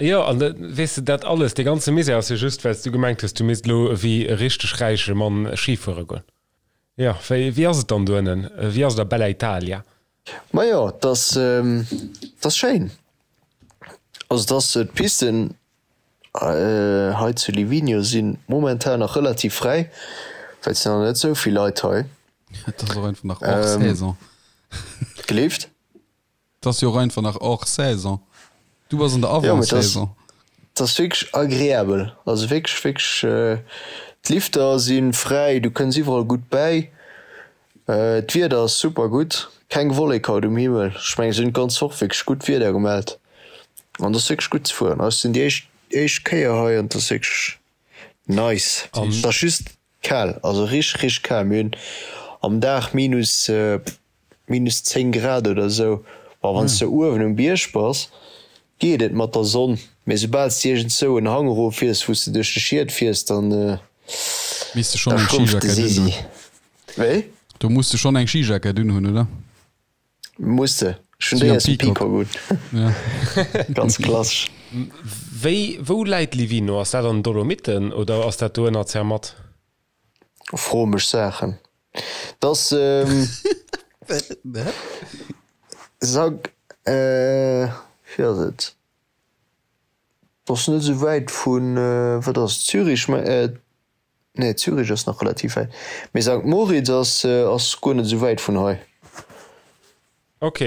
Jo, an weess de, dat alles, dee ganze Misär ass jo just, well s du gemengt hues, du misst elo ewéi e richteg räiche Mann Schi fuere goen. Jo, wéi, wéi ass et dann do ënnen? Wéi ass et a Bella Italia? Majo, et ass, et ass schéin. Also et ass, d'Pisten hei zu Livigno si momentan nach relativ fräi, well et sinn nach net esou vill Leit hei. Et ass och einfach nach hors saison. Gleeft? Et ass jo och einfach nach hors saison. Du bass an der Avant-saison. Et ass wierklech agreabel. Also wierklech, wierklech, d'Lifter si fräi, du kënns iwwerall gutt bäi. D'Wieder ass super gutt, keng Wollek haut um Himmel. Ech mengen, se hunn d'ganz Woch wierklech gutt Wieder gemellt an et ass wierklech gutt ze fueren. Ech sinn déi éischt, éischt Kéier hei an et ass wierklech nice. Et ass just kal, also richteg, richteg kal. Mir hunn am Dag minus minus 10 Grad oder sou. Bon, wann s de uewen um Bierg bass, geet et mat der Sonn, mee soubal s de iergendzou en Hang erof fiers, wou s de duerch de Schiet fiers, dann Misst de schonn eng schrumpft de Skijackett Sisi. unhunn. Wéi? Do muss de schonn eng Skijackett unhunn, oder? Muss de. Ech hunn Wéi déi am aus dem Peacock. Peacock un. Ja. Ganz klassesch. Wéi, wou läit Livigno? Ass dat an den Dolomiten oder ass dat do ënner Zermatt? Fro mech Saachen. Dass Sag wéi ass et? Ass net esou wäit vun, wat ass et, Zürich? Nee Zürich ass nach relativ wäit, mee Sankt Moritz ass ass guer net esou wäit vun hei. Ok.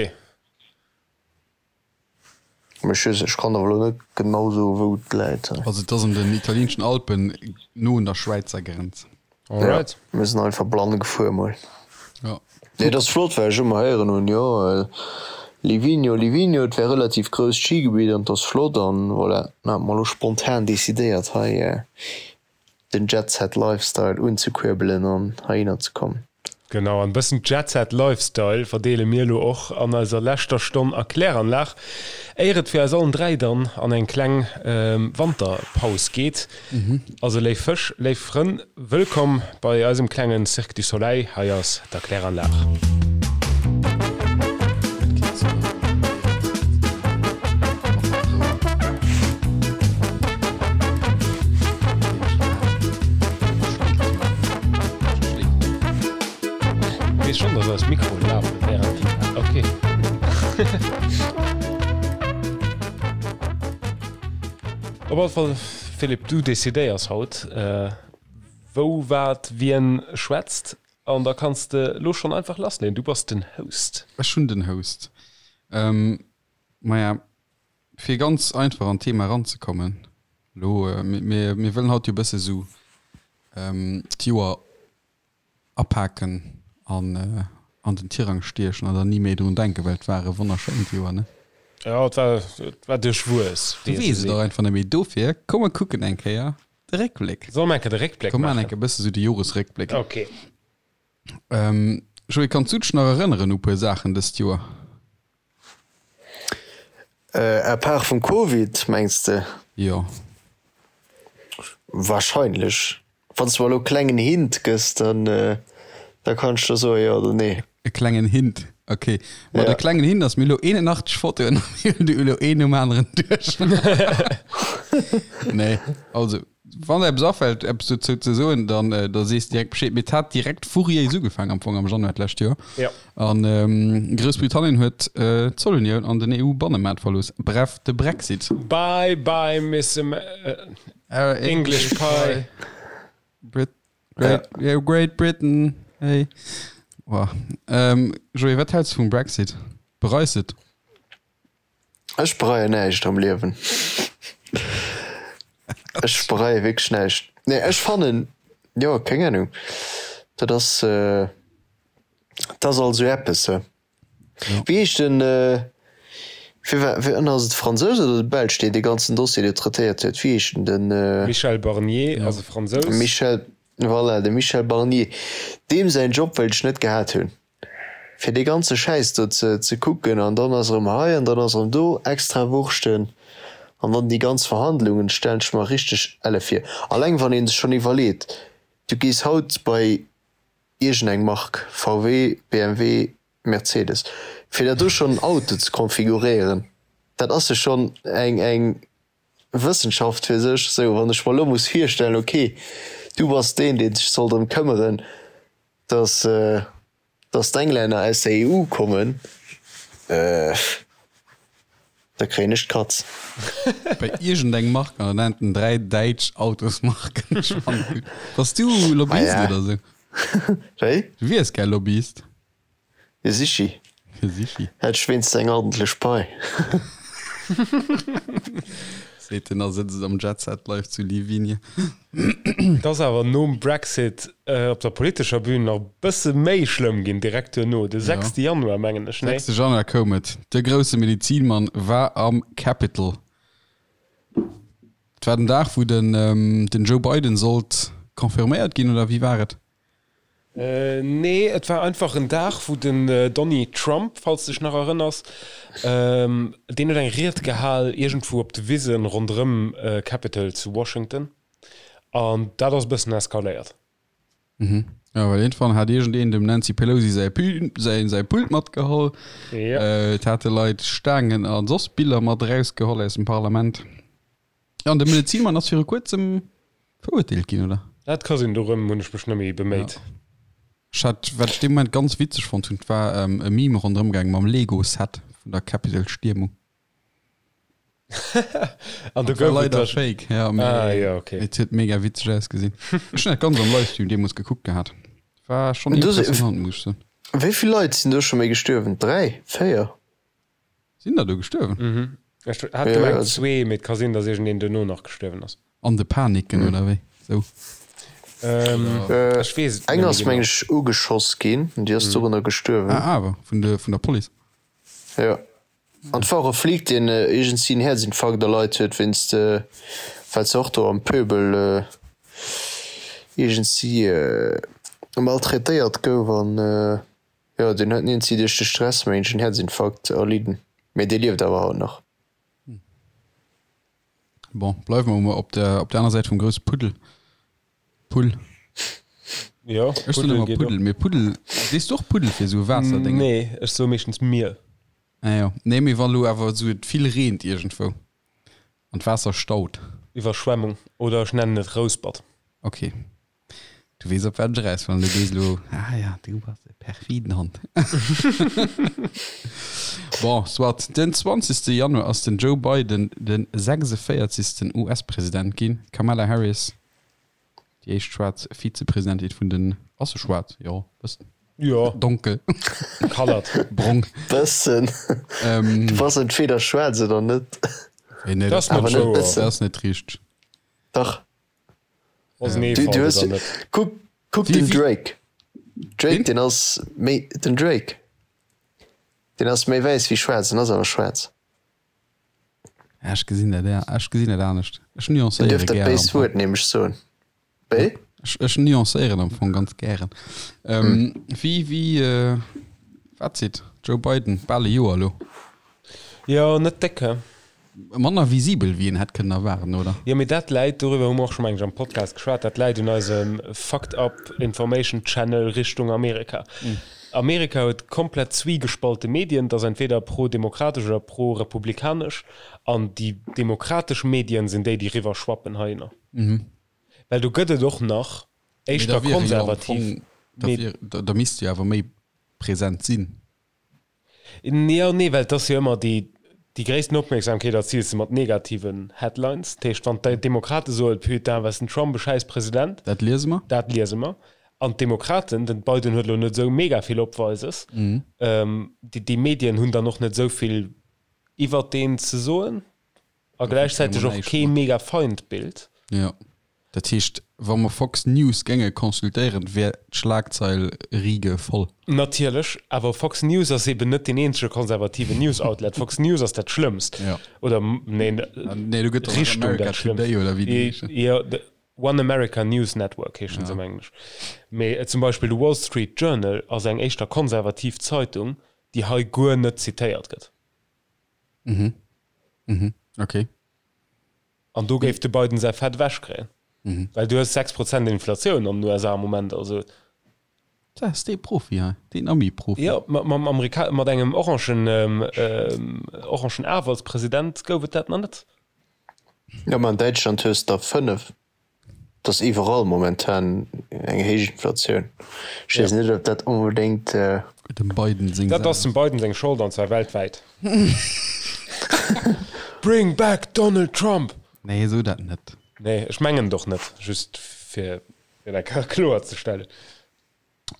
Mee ech ech kann awer elo net genau soen wou et läit. Also et ass an den italienschen Alpen, no un der Schwäizer Grenz. Alright. Ja, mir sinn einfach blann gefuer mol. Ja. Nee, et ass flott, well ech ëmmer héieren hunn, jo Livigno, Livigno, et wär relativ grousst Skigebitt an et ass flott an voilà. Dann hat mer elo spontan decidéiert hei den Jet-Set Lifestyle unzekuerbelen an heihinner ze kommen. Genau, an e bëssen Jet-Set Lifestyle verdeele mir elo och an eiser leschter Stonn a Kläranlag, éier et fir eis allen 3 dann an eng kleng Wanterpaus geet. Also léif Fësch, léif Frënn, wëllkomm bei eisem klengen Cirque du Soleil, hei ass d'Erkläranlag. Weess schon dass eis Mikroen lafen während déi ok. Op alle Fall Philippe, du decidéiers haut wou, wat, wien schwätzt an da kanns de lo schon einfach lassleeën. Du bass den Host. Ech hunn den Host. Maja, fir ganz einfach an d'Thema eranzekommen, lo, mir, mir wëllen haut jo e bësse sou d'Joer apaken an an den Tirang stiechen an dann ni méi drun denken, well et war e wonnerschéint Joer, ne? Jo, et war, et war duerchwuess, Du wéi ee weess sou et och seet. einfach net méi. Dofir, komm mer kucken eng Kéier de Réckbléck. Solle mer eng Kéier de Réckbléck Komm maachen maachen? eng Kéier e bësse sou de Joresréckbléck. Ok. Joé, kanns du dech nach erënneren u puer Saachen dëst Joer? À part vum Covid, mengs de? Jo. Wahrscheinlech. Wann s de mer elo e klengen Hint gëss, dann da kann ech der soen, jo oder nee. E klengen Hint, ok. Ma de Ja. klengen Hint ass, mir hu elo 81 Fotoen a mir hunn déi elo een nom aneren duerch. Nee, also wann der eppes afält, eppes dozou ze soen, dann da sees de direkt Bescheed. Mee et hat direkt furiéis ugefaangen am Fong am Januar d'lescht Joer. Ja. An Groussbritannien huet d'Zollunioun an den EU-Bannemaart verlooss. Bref, de Brexit. Bye bye Miss English Pie. Brit Great, yeah, Great Britain, hey. Boah. Joé, wat häls de vum Brexit? Bereis de et? Ech bereien näischt am Liewen. Ech bereie wierklech näischt. Nee, ech fannen, jo, keng Ahnung, dat ass, dat ass alt esou eppes, he. Wéi heescht den, fir wa, wéi ass et de Fransous oder de Belsch, deen dee ganzen Dossier do traitéiert huet? Wéi heescht en? Den. Michel Barnier ass e Fransous. Michel, voilà, de Michel Barnier. Deem säin Job wéilt ech net gehat hunn. Fir dee ganze Schäiss do ze ze kucken an dann ass erëm hei an dann ass erëm do extra Wurschten an dann déi ganz Verhandlungen stellen ech mer richteg elle vir. Alleng wann ee sech schonn iwwerleet, du gees haut bei iergend eng Mark, VW, BMW, Mercedes, fir der do schonn en Auto ze konfiguréieren, dat ass jo schonn eng eng. Wëssenschaft fir sech. Sou, wann ech mer elo muss virstellen, ok, du bass deen, dee sech soll drëm këmmeren, dass, dass d'Englänner aus der EU kommen, da kréien ech d'Katz. Bei iergendeng Mark an dann nennt en 3 däitsch Autosmarken. Ech fannen gutt. Bass du Lobbyist Ah ja. oder sou? Wéi? Du wiers gär Lobbyist. Jo sichi. Jo sichi. Hätt ech wéinst eng ordentlech Pai. Seet en a sëtzt am Jet Set Life zu Livigne. Et ass awer nom Brexit op der politescher Bühn nach e bësse méi schlëmm ginn, direkt duerno, de 6. Januar mengen ech, nee? 6. Januar koum et, de grousse Medizinmann war am Capitol. Et war den Dag, wou den Joe Biden sollt confirméiert ginn, oder wéi war et? Nee, et war einfach en Dag, wou den Donny Trump, falls de dech nach erënners, deen huet eng Ried gehal iergendwou op de Wisen ronderëm Capitol zu Washington an dat ass e bëssen eskaléiert. Mhm. Jo, well iergendwann hat iergendeen dem Nancy Pelosi säi Pü, säi, säi Pult matgeholl. Ja. Et hate Leit Staangen a soss Biller mat erausgeholl aus dem Parlament. An de Medezinmann ass viru kuerzem verurteelt ginn, oder? Dat ka sinn, dorëm hunn ech mech net méi beméit. Ja. Ech hat, wat ech dee Moment ganz witzeg fonnt hunn, war e Meme ronderëm gaang mam Lego-Set vun der Capitol-Stiermung. An do Dat war gouf et leider da. fake, ja, Ah, mee jo, okay. et huet mega witzeg ausgesinn. Ech hunn dat ganz am Livestream deemools gekuckt gehat. War schonn Do si, impressionant, muss ech soen. wéi vill Leit sinn do scho méi gestuerwen? 3? 4? Sinn der do gestuerwen? Mhm. Ech hat Ja, gemengt also, zwee, mee et ka sinn, datt iergendeen duerno nach gestuerwen ass. An de Paniken oder wéi? Sou. Ähm, äh, ech weess et eng net méi ass genau. meng ech ugeschoss ginn, déi ass dorënner gestuerwen. Ah, awer vun de, vun der Police. Ja. An et war och e Flic, deen iergendsi en Häerzinfarkt erleit huet wéinst, well se och do am Pöbel iergendsi maltraitéiert gouf an Jo, deen huet iergendwéi duerch de Stress mengen ech en Herzinfarkt erlidden, mee dee lieft awer haut nach. Bon, bleiwe mer mol op der, op der aner Säit vum grousse Puddel. Pull. Jo, Ech soen Puddel ëmmer geet och. Puddel, mee Puddel, sees du och Puddel fir esou Waasserdéngen? Nee, ech soe meeschtens Mier. Ah jo, nee, mee wa lo awer esou et vill reent iergendwou an d'Waasser staut. Iwwerschwemmung oder ech nennen et Rouspert. Ok. Du weess op wat ech eraus wëll, du gees elo, ah ja, du bass e perfiden Hond. Bon, soit. Den 20. Januar ass den Joe Biden de 46. US-President ginn. D'Kamala Harris, déi éischt schwaarz Vizepresidentin vun den, ass se schwaarz? Jo, bëssen. Jo. Donkel. Colored. Brong. Bëssen. Du bass entweder schwaarz oder net. Nee, Dat ass net Awer net wouer. bëssen. Dat ass net richteg. Dach. Ass en Du, Eefalt du hues, oder net? kuck, kuck Wie- den wie- Drake. Drake, Wien? den ass méi, den Drake. Den ass méi wäiss wéi schwaarz, den ass awer schwaarz. Ja, ech gesinn dat, ja. Ech gesinn dat anescht. Ech Den nuancéiere duerf dat gären am béist Fong. Wuert nämlech soen. Wéi? Ech, ech nuancéieren am Fong ganz gären. Ähm, Wéi, wéi, äh, Fazit, Joe Biden, bal e Joer elo. Jo, net déck, he? Manner visibel wéi een hätt kënnen erwaarden, oder? Jo, mee dat läit, doriwwer hu mer och scho meng ech am Podcast geschwat, dat läit un eisem fucked up information channel Richtung Amerika. Amerika huet komplett zwiegespallte Medien, dat ass entweder pro-demokratesch oder pro-republikanesch, an déi demokratesch Medien sinn déi, déi riwwer schwappen heihinner. Well do gëtt et och nach éischter konservativ. Da misst jo awer méi present sinn. Jo, nee, well et ass jo ëmmer déi, déi gréissten Opmierksamkeet erziils de mat negativen Headlines. Dat heescht, wann d'Demokrate soen, Putain, was den Trump e schäiss President. Dat liese mer. Dat liese mer. An d'Demokraten, den Biden huet elo net esou mega vill Opweises, déi, déi Medien hunn dann och net esou vill iwwert deen ze soen. A gläichzäiteg och kee mega Feindbild. Jo. Dat heescht, wa mer Fox News géinge consultéieren, wär d'Schlagzeil Riege voll. Natierlech, awer Fox News ass eben net deen eenzege konservativen News-Outlet. Fox News ass dat Schlëmmst. Jo. Oder, neen, Nee, do gëtt och nach Richtung America dat Schlëmmst. Today oder wéi déi heeschen. Jo, de One America News Network heeschen se am Englesch. Mee zum Beispill de Wall Street Journal ass eng éischter konservativ Zeitung, déi hei guer net zitéiert gëtt. Mhm. Mhm. Okay. An do géif de Biden säi Fett ewech kréien. Mhm. Well du hues 6 Prozent Inflatioun an den USA am Moment. Also, Dat ass dee Profi hei, deen Ami-Profi. jo, mat, mam Amerika mat engem orangen, ähm, ähm, orangen Af als President gouf et dat nach net. Jo, ma an Däitschland hues der 5. Et ass iwwerall momentan eng héich Inflatioun. Ech weess net, ob dat onbedéngt. Dem Biden seng Dat ass dem Biden seng Schold, an zwar weltwäit. Bring back Donald Trump! Nee, so dat net. Nee, ech mengen et och net, just fir dat kloer ze stellen.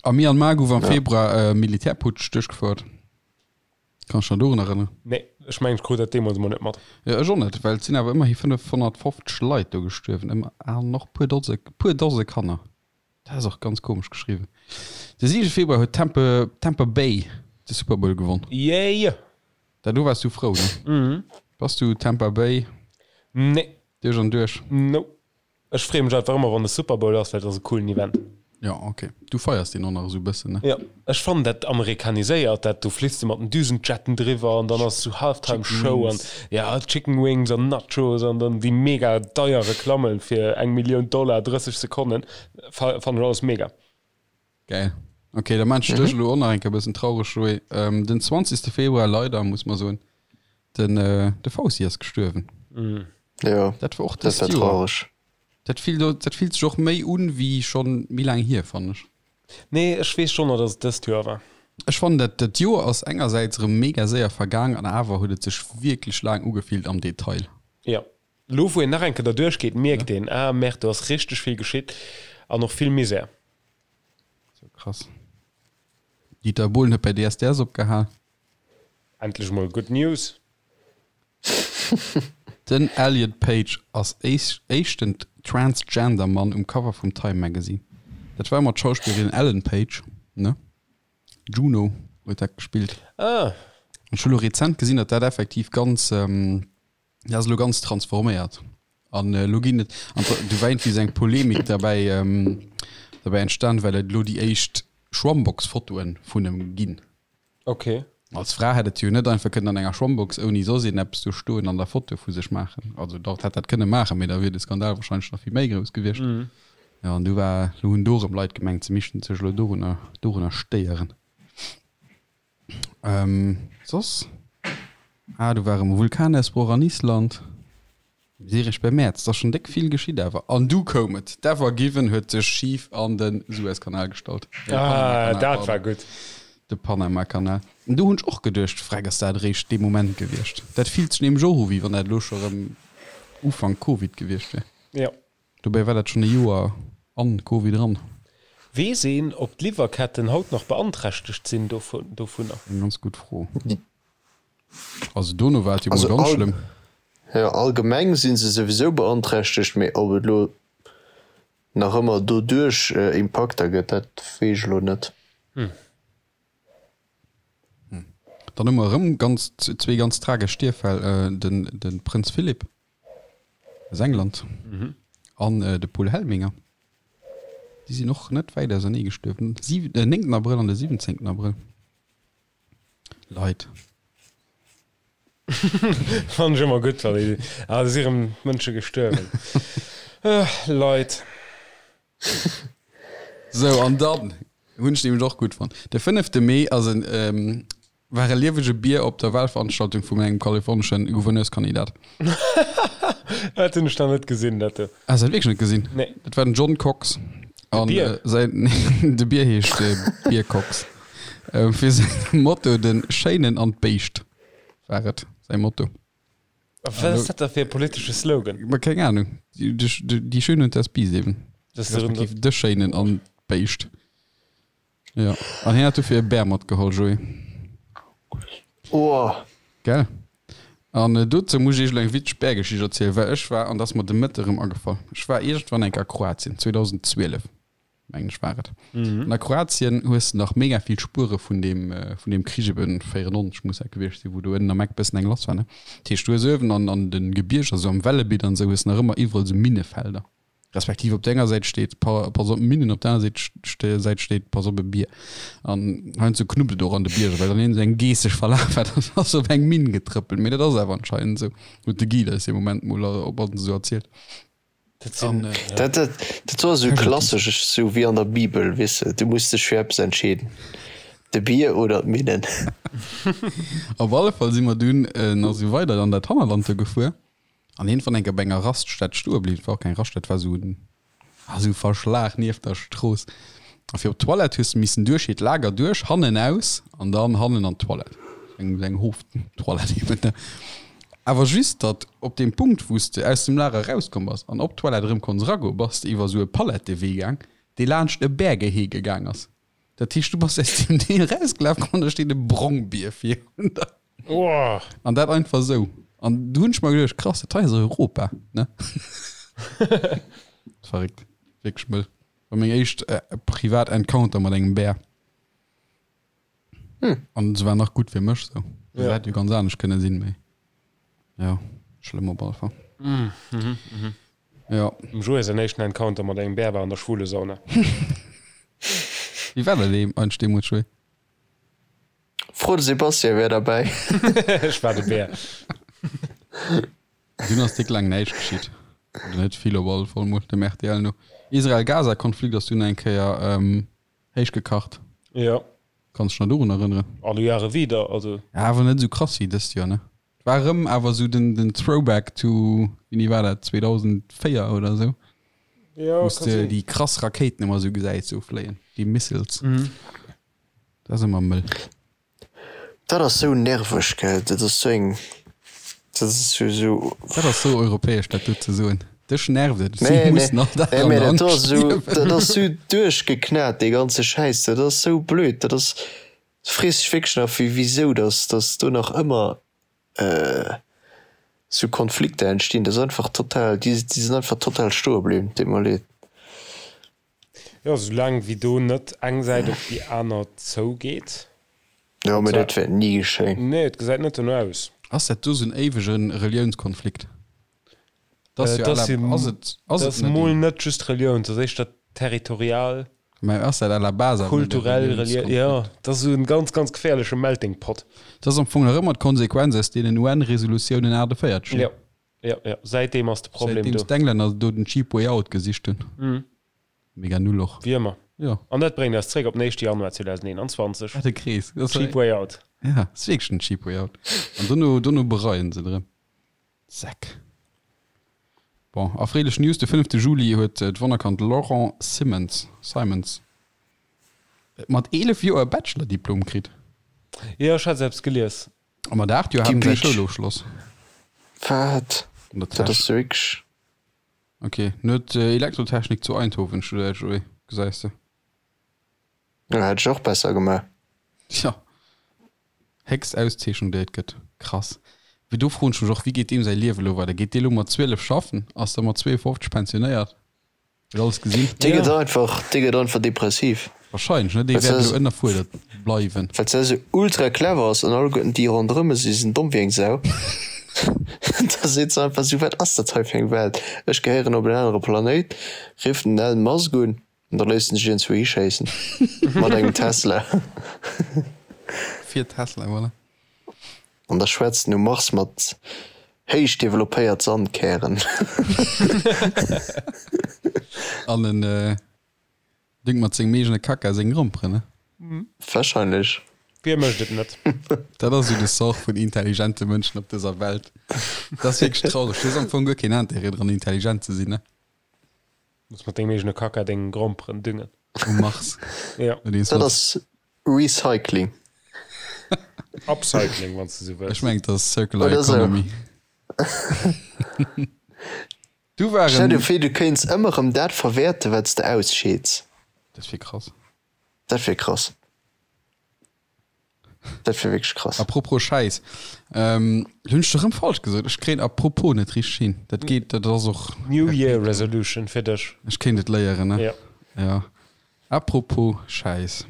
A Myanmar gouf am Februar e Militärputsch duerchgefouert. Kanns dech nach dorun erënneren? Nee, ech mengen ech krut dat deemools emol net mat. Jo, ech och net, well et sinn awer ëmmerhi 550 Leit do gestuerwen, ëmmer an och puer Dose, puer Dose Kanner. Dat ass och ganz komesch geschriwwen. De 7 Februar huet Tampa, Tampa Bay de Super Bowl gewonn. Yay! Da do waars du frou, ne? Mhm. Bass du Tampa Bay Nee. duerch an duerch? Nope. Ech freeë mech einfach ëmmer wann de Super Bowl ass, well et ass e coolen Event. Jo, ok. Du feiers deen och nach esou e bëssen, ne? Jo, ech fannen dat amerikaniséiert, dat do fliss de mat den Düsenjetten driwwer an dann ass esou Halftime Show an ja Chicken Wings an Nachos an dann déi mega deier Reklammen fir eng Millioun Dollar 30 Sekonnen, fannen ech alles mega. Geil. Ok, da maan ech dech elo och nach eng Kéier e bëssen traureg, Joé. Den 20. Februar, leider, muss mer soen, den de Fauci ass gestuerwen. Jo, Dat war och dat dëst war Joer. traureg. Dat fillt, dat fillt sech och méi un wéi schonn méi laang hier, fannen ech. Nee, ech weess schonn nach, dass et dëst Joer war. Ech fannen dat dat Joer ass engersäits erëm mega séier vergaang an awer huet et sech wierklech laang ugefillt am Detail. Jo, elo wou een nach eng Kéier derduerch geet, mierkt een, ah merde, do ass richteg vill geschitt an och vill Misär. Sou krass. Dieter Bohlen huet bei DSDS opgehal. Endlech mol good news. Den Elliot Page ass éischten Transgender Mann um Cover vum Time Magazine. Dat war ëmmer d'Schauspillerin Ellen Page, ne? Juno huet dat gespillt. Ah. Ech hu lo rezent gesinn, datt dat effektiv ganz. Dat ass elo ganz transforméiert. An elo ginn et, an du war iergendwéi esou eng Polemik derbäi, derbäi entstan, well et elo déi éischt Schwammbox-Fotoe vun em ginn. Okay. Als Fra hätt et jo net einfach kënnen an enger Schwammbox ouni soss een eppes do stoen an da Fotoe vu sech maachen. Also dach, hätt dat kënne maachen, mee da wier de Skandal wahrscheinlech nach vill méi grouss gewiescht. Jo, an du war, elo hunn do erëm Leit gemengt, se missten sech elo dorunner, dorunner stéieren. Ähm, soss? Ah, do war erëm e Vulkanausbroch an Island. Mir si eréischt beim Mäerz, et ass schonn déck vill geschitt awer. An du koum et, d'Ever Given huet sech schif an de Suezkanal gestallt. Nee, de Ah, Panamakanal, dat war pardon. gutt. De Panamakanal. An do hunn ech och geduecht, Freck, ass dat eréischt dee Moment gewiescht? Dat fillt sech nämlech och u wéi wann dat elo scho erëm Ufank Covid gewiescht wier. Jo. Dobäi war dat schonn e Joer an Covid eran. Weess een, ob d'Liwwerketten haut nach beanträchtegt sinn dovunner? Eng ganz gutt Fro. Also dono war et jo mol ganz schlëmm. Jo, allgemeng si se souwisou beanträchtegt, mee ob et elo nach ëmmer doduerch Impakter gëtt, dat weess ech elo net. Dann hu mer erëm ganz zwee ganz tragesch Stierffäll, den de Prënz Philip aus England an de Paul Helminger. Déi sinn och net wäit ausernee gestuerwen, den 9 Abrëll an de 17 Abrëll. Leit. Fannen ech ëmmer gutt, wann ee, ah, do si rëm Mënsche gestuerwen. Leit. Sou, an dann hunn ech nämlech och gutt fonnt. De fënnefte Mee ass en, war e liewege Bier op der Wahlveranstaltung vum engem kalifornesche Gouverneurskandidat. Dat hunn ech nach net gesinn, dat do. Has de dat wierklech net gesinn? Nee. Dat war den John Cox. De Bier? Säin, de Bier heescht Bier Cox. Fir säin Motto, de Schéinen an d'Béischt war et säi Motto. Wat ass dat da fir e politesche Slogan? Ma keng Ahnung. Die Schöne und das Biest eben. Das respektiv de Schéinen an d'Béischt. Ja. An hien hat dofir e Bär matgeholl, Joé. Oh. Gell? An äh, dozou muss ech iech elo eng witzeg Bärgeschicht erzielen, well ech war, an dat ass mer de Mëtte erëm agefall, ech war iergendwann eng Kéier a Kroatien, 2012. mengen ech war et. An a Kroatien hues de nach mega vill Spuere vun deem, vun deem Krich eben 94 muss dat gewiescht sinn, wou do ënnen am Eck bëssen eng lass war, ne? Dat heescht, du hues uewen an, an de Gebierger, esou am Velebit an esou, hues de nach ëmmer iwwerall esou Minnefelder. Respektiv op der enger Säit steet, pa, pass op Minnen, op der aner Säit ste, Säit steet, pass op e Bier. An heiansdo knuppt et och an de Bierger, well dann een esou eng Geess sech verlaf hat an ass op eng Minn getrëppelt. Mee dat ass awer anscheinend esou, huet de Guide eis dee Moment mol op an esou erzielt. Dat sinn, An, ja. Dat, dat, dat war esou klassesch, esou wéi an der Bibel, weess de, du muss dech fir eppes entscheeden, de Bier oder d'Minnen. Op alle Fall si mer dunn nach esou weider an dat Hannerland do gefuer. An iergendwann eng Kéier bei enger Raststätt stoe bliwwen, et war och keng Raststätt, et war esou en, ah, esou e Verschlag nieft der Strooss. A fir op d'Toilette hues de missen duerch hiert Lager duerch, hannen aus an dann hannen an d'Toilette. Eng, eng Hoftoilette eben, ne? Awer just, datt op deem Punkt, wou s de aus dem Lager erauskomm bass an op d'Toilette erëm konns eragoen, bass de iwwer esou e Palettewee gaang, dee laanscht e Bärgehege gaang ass. Dat heescht, du bass aus deem Deel erausgelaf an da steet e Brongbier virun der. Oh. An dat einfach esou. An du hunn ech mer geduecht, krass, dat hei ass Europa, ne? Verréckt. Wierklech mëll. War meng éischt äh, privat Encounter mat engem Bär. Hm. An se war nach gutt fir mech sou. Se Ja. hätt jo ganz anescht kënne sinn, mee ja, schlëmm op alle Fall. Mm, mhm, mhm. Ja. Dem Joé säin éischten Encounter mat engem Bär war an der Schwulesauna. Wéi war dat eigentlech deemools, Joé? Fro de Sebastian, wär derbäi. Ech war de Bär. Dunn ass déck laang näischt geschitt. Oder net vill op alle Fall mol, dem rtl no. Israel-Gaza-Konflikt ass dunn eng Kéier héich gekacht. Jo. Kanns dech nach dorun erënneren? Alle Jahre wieder, also. Ja, awer net esou krass wéi dëst Joer, ne? War erëm awer esou den, den Throwback to, wéini war dat, 2004 oder esou? Jo, Wou s kann de sinn. déi krass Rakéiten ëmmer esou gesäis esou fléien, déi Missiles. Mhm. Dat ass ëmmer mëll. Dat ass sou nerveg, gell? Dat ass sou eng, dat ass sou, sou. Dat ass sou europäesch, dat do ze soen. Dech nervt et, si Nee, nee, mussen all Dag nee, an mee der dat do Angscht ass sou, liewen. dat ass sou duerchgeknat, dee ganze Schäiss. Dat ass sou blöd. Dat ass, du frees dech wierklech nach, wéi, wisou dass, dass do nach ëmmer sou Konflikter entstinn. Dat ass einfach total, déi, déi sinn einfach total stoe bliwwen. Deet mer leed. Jo, soulaang wéi do net eng Säit op déi aner zougeet. Jo, mee dat wäert ni geschéien. Nee, et gesäit net dono aus. Ass dat do sou en éiwege Reliounskonflikt? Dat ass jo à la, ass et, ass Dat et ass net mol een? net just Relioun, dat ass éischter territorial, Mä ass dat à la base awer net e kulturell, relié, jo, Reliounskonflikt? dat ass esou en ganz, ganz geféierleche Melting Pot. Dat ass am Fong nach ëmmer d'Konsequenz aus deenen UN-Resolutiounen 48, ne? Jo, jo, jo, säitdeem ass de Problem do. Säitdeems d'Englänner do den cheap way out gesicht hunn. Mega null och. Wéi ëmmer. Jo. An dat bréngt eis zréck op den éischte Januar 2021. Wat e Krees. Dat ass Cheap way out. Ja, ass wierklech den cheap way out. An dono, dono bereien se et erëm. Säck. Bon, erfreelech News, de fënnefte Juli huet d'Wonnerkand Laurent Simmons, Simons, mat 11 Joer e Bachelor-Diplom kritt. Jo, ech hat eppes gelies. A mat 8 Joer hat en säi Schoulofschloss. Wat? An der Dat Täsch. ass wierklech. Ok, en huet Elektrotechnik zu Eindhoven studéiert, Joé, gesäis de. Jo, hätt ech och besser gemaach. Tja, héchst Auszeechnung déi et gëtt. Krass. Mee do froen ech mech och, wéi geet deem säi Liewe lo weider? Geet dee lo mat 12 schaffen? Ass da mat 52 pensionéiert? Huet alles gesinn? Dee gëtt einfach, dee gëtt einfach depressiv. Wahrscheinlech, ne? Dee wäert elo ënnerfuerdert bleiwen. Well se esou ultra clever ass an alleguerten déi ronderëm e si sinn domm wéi eng Sau. Da seet se einfach esou, wat ass dat hei fir eng Welt? Ech gehéieren op en anere Planéit. Rifft den Elon Musk un an da léisst en sech iergendzwou hischéissen mat engem Tesla. Fir Tesla, voilà. An da schwätzt en um Mars mat héich developpéiert Sandkären. An en düngt mat sengem eegene Kacka seng Gromperen, ne? Wahrscheinlech. Wie mécht et net? Dat ass esou de Sort vun intelligente Mënschen op dëser Welt. Dat ass wierklech traureg. Du hues am Fong guer keen Intérêt dran, intelligent ze sinn, ne? Muss mat dengem eegene Kacka deng Gromperen düngen. Um Mars. Ja. Dat ass Recycling. Upcycling, wann s de sou wëlls. Ech mengen, dat ass Circular Oder sou. Economy. Du Stell waren. dir vir, du kéints ëmmer erëm dat verwäerten, wat s de ausscheeds. Dat wier krass. Dat wier krass. Dat wier wierklech krass. Apropos Schäiss, ähm, hunn ech erëm falsch gesot. Ech kréien apropos net richteg hin. Dat geet, dat ass och. New Year Resolution fir dech. Ech kéint et léieren, ne? Ja. Ja. Apropos Schäiss.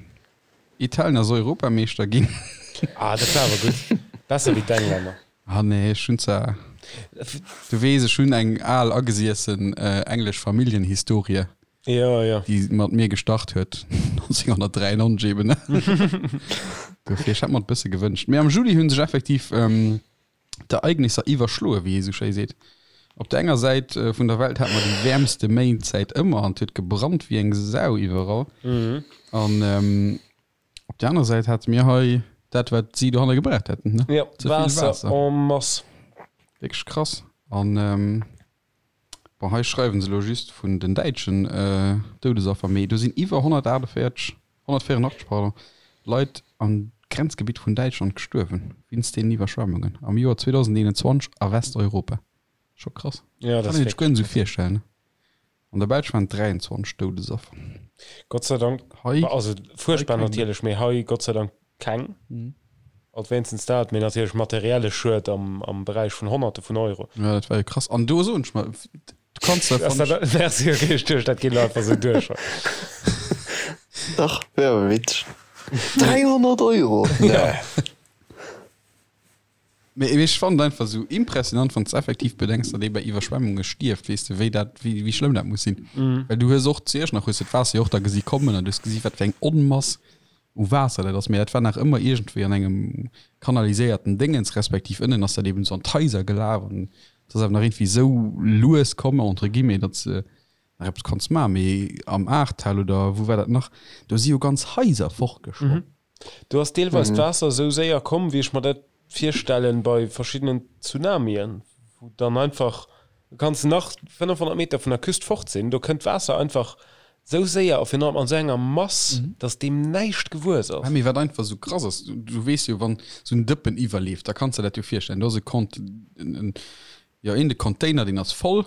Italien ass Europameeschter ginn. Ah, dat war awer gutt. Besser wéi d'Englänner. Ah nee, ech hunn zwar, du weess, ech hunn eng al agesiessen englesch Familljenhistorie. Jo, jo. Déi mat mir gestart huet 1993 eben. Dofir, ech hätt mer et bësse gewënscht. Mee am Juli hu sech effektiv d'Ereignisser iwwerschloe, wéi ee sou schéi seet. Op der enger Säit vun der Welt hate mer déi wäermste Méint säit ëmmer an et huet gebrannt wéi eng Sau iwwerall. An op der anerer Säit hate mir hei dat, wat si dohanne gebraucht hätten, ne? Jo, Ze vill Waasser Waasser. en masse. Wierklech krass. An bon, hei schreiwen se elo just vun den däitschen Doudesaffer, mee do sinn iwwer 148, 184, pardon, Leit am Grenzgebitt vun Däitschland gestuerwen wéinst deenen Iwwerschwemmungen am Joer 2021 a Westeuropa. Scho krass. Ja, dat ass Kann een sech guer net esou virstellen, ne? An der Belsch waren et 23 Doudesaffer. Gott sei Dank, Hei, also fuerchtbar hei keng. natierlech, mee hei Gott sei Dank keng. Alt wéinstens dat, mee natierlech materielle Schued am, am Beräich vun Honnerte vun Euro. Ja, dat war jo krass. An do soen ech mer, du kanns da, Ass fann dat, ech. merci, okay, ech duecht, dat geet elo einfach esou duerch. Dach, wär awer witzeg. 300 Euro? Ja. Nee. Mee ech fannen et einfach esou impressionant, wann s de effektiv bedenks, datt ee bei Iwwerschwemmunge stierft, weess de, wéi dat, wéi, wéi schlëmm dat muss sinn. Well du hues och zu Iechternach hues de d'Waasser jo och da gesi kommen an du hues gesi wat fir eng Onmass u Waasser dat ass. Mee dat war nach ëmmer iergendwéi an engem kanaliséierten Déngens, respektiv ënnen ass dat eben esou an d'Haiser gelaf an et ass awer nach iergendwéi esou lues komm, entre guillemets, datt s de nach eppes konns maachen. Mee am Ahrtal oder wou war dat nach, do si jo ganz Haiser fortgeschwommen. Do ass deelweis d'Waasser esou séier komm, wéi ech mer dat virstellen bei verschiddenen Tsunamien, wou dann einfach, du kanns nach 500 Meter vun der Küst fort sinn, do kënnt d'Waasser einfach esou séier a virun allem an esou enger Mass, dass deem näischt gewuess ass. Mee wat einfach esou krass ass, du weess jo, wann esou en Dëppen iwwerleeft, da kanns de der dat jo virstellen, do ass e Kont, en, Jo een de Container deen ass voll,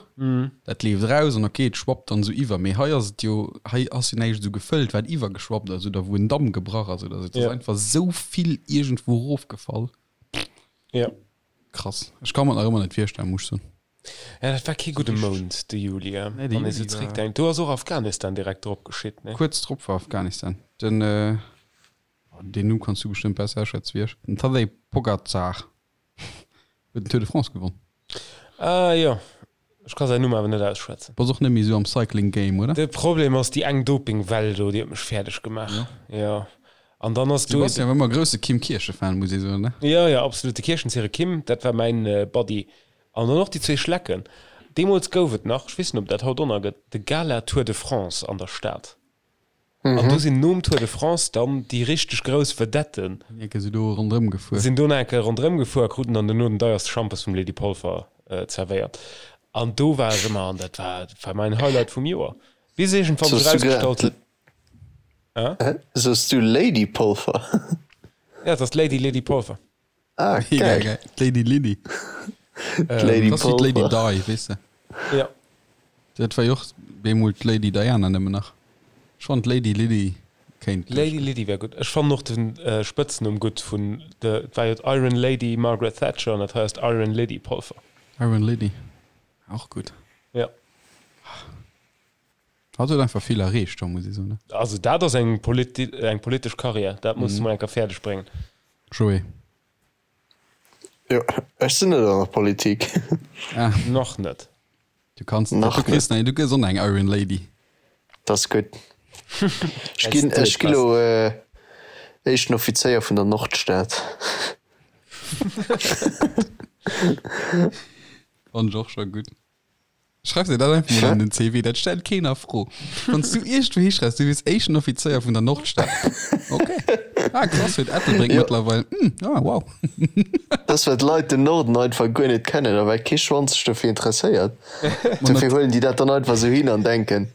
dat leeft eraus an ok et schwappt dann esou iwwer. Mee hei ass et jo, hei ass jo näischt esou gefëllt wat iwwergeschwappt ass oder wou en Damm gebrach ass oder esou. Et ass einfach esou vill iergendwou erofgefall. Ja. Krass. Ech ka mer et nach ëmmer net virstellen, muss ech soen. Ja, dat war kee gudde Mount, de Juli, Nee, de wann ee sou Juli war. zeréckdenkt. Do ass och Afghanistan direkt drop geschitt, nee? Kuerz drop war Afghanistan. Den, deen Numm kanns du bestëmmt besser aschwätzen wéi ech, den Tadej Pogacar. Huet den Tour de France gewonn. Ah jo, ech ka säin Numm awer net ausschwätzen. Bass och net méi esou am Cycling Game, oder? De Problem ass déi eng Doping-Well do, déi huet mech fäerdeg gemaach. Jo. An dann ass Du do. bass jo ëmmer grousse Kim Kirchen-Fan, muss ee soen, ne? Jo, jo, absolut. De Kirchenzire Kim, dat war mäin Buddy. An dann och déi zwee Schlecken. Deemools gouf et nach, ech weess net, ob dat haut och nach gëtt, de Gala Tour de France an der Stad. An do sinn nom Tour de France dann déi richteg grouss Vedetten. Enke si do ronderëm gefuer. Sinn do nach eng Kéier ronderëm gefuer a kruten dann dono den deierste Schampes vum Lady Polfer zerwéiert. An do war ech ëmmer, an dat war, dat war mäin Highlight vum Joer. Bis iergendwann sech erausgestallt huet. Hä? Soos du Lady Polfer? Ja, et ass d'Lady Lydie Polfer. Ah, Mega geil. geil. D'Lady Lydie. D'Lady Das ass wéi d'Lady Polfer. Di, weess de. Ja. Dat war jo och bemol d'Lady Diana nëmmen nach. Ech fannen d'Lady Lydie kéint Lady duerchgoen. Lydie wär gutt. Ech fannen och de Spëtznumm gutt vun de, et war jo d'Iron Lady Margaret Thatcher an dat hei ass d'Iron Lydie Polfer. Iron Lydie, och gutt. Ja. Hatt huet einfach vill erreecht, muss ee soen, ne? Also dat ass eng politi eng politesch Karriär, dat muss de mol eng Kéier fäerdeg bréngen. Joé. Jo, ech sinn net an der Politik. Ah. Nach net. Du kanns, Nach du kriss, net. du gëss och nach eng Iron Lady. Dat ass gutt. Ech ginn, ech gi lo éischten Offizéier vun der Nordstad. Fannen ech och scho gutt. Schreif dir dat einfach mol an den CV, dat stellt keen a Fro. Wann s du iergendwou hischreifs, du wiers éischten Offizéier vun der Nordstad. Ok. Ah, krass, huet Ettelbréck Jo. mëttlerweil. Hm, ah, wow. Dat ass, well d'Leit den Norden einfach guer net kennen a well kee Schwanz sech dofir interesséiert. Ma Dofir nat huelen déi dat dann einfach esou hin an denken,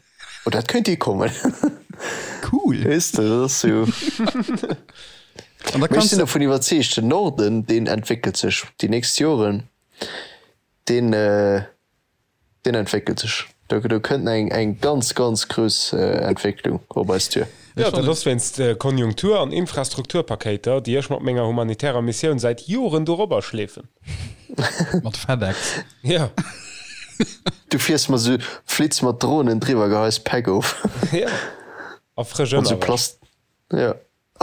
oh, dat kéint hikommen. Cool. Weess de, dat ass sou. An da Mee ech kanns sinn de. dovun iwwerzeegt, den Norden, deen entwéckelt sech déi nächst Joren. Deen, deen entwéckelt sech. Do, do kënnt eng, eng ganz, ganz grouss Entwécklung op eis duer. Jo, dat ass wéinst Konjunktur an Infrastrukturpakéiter, déi ech mat menger humanitärer Missioun säit Joren dorobber schleefen. Mat FedEx. Jo. Du fiers mat esou, flitts mat Dronen driwwer, geheis Päck of. Jo. A frësch An esou Ënnerwäsch. Plast, jo.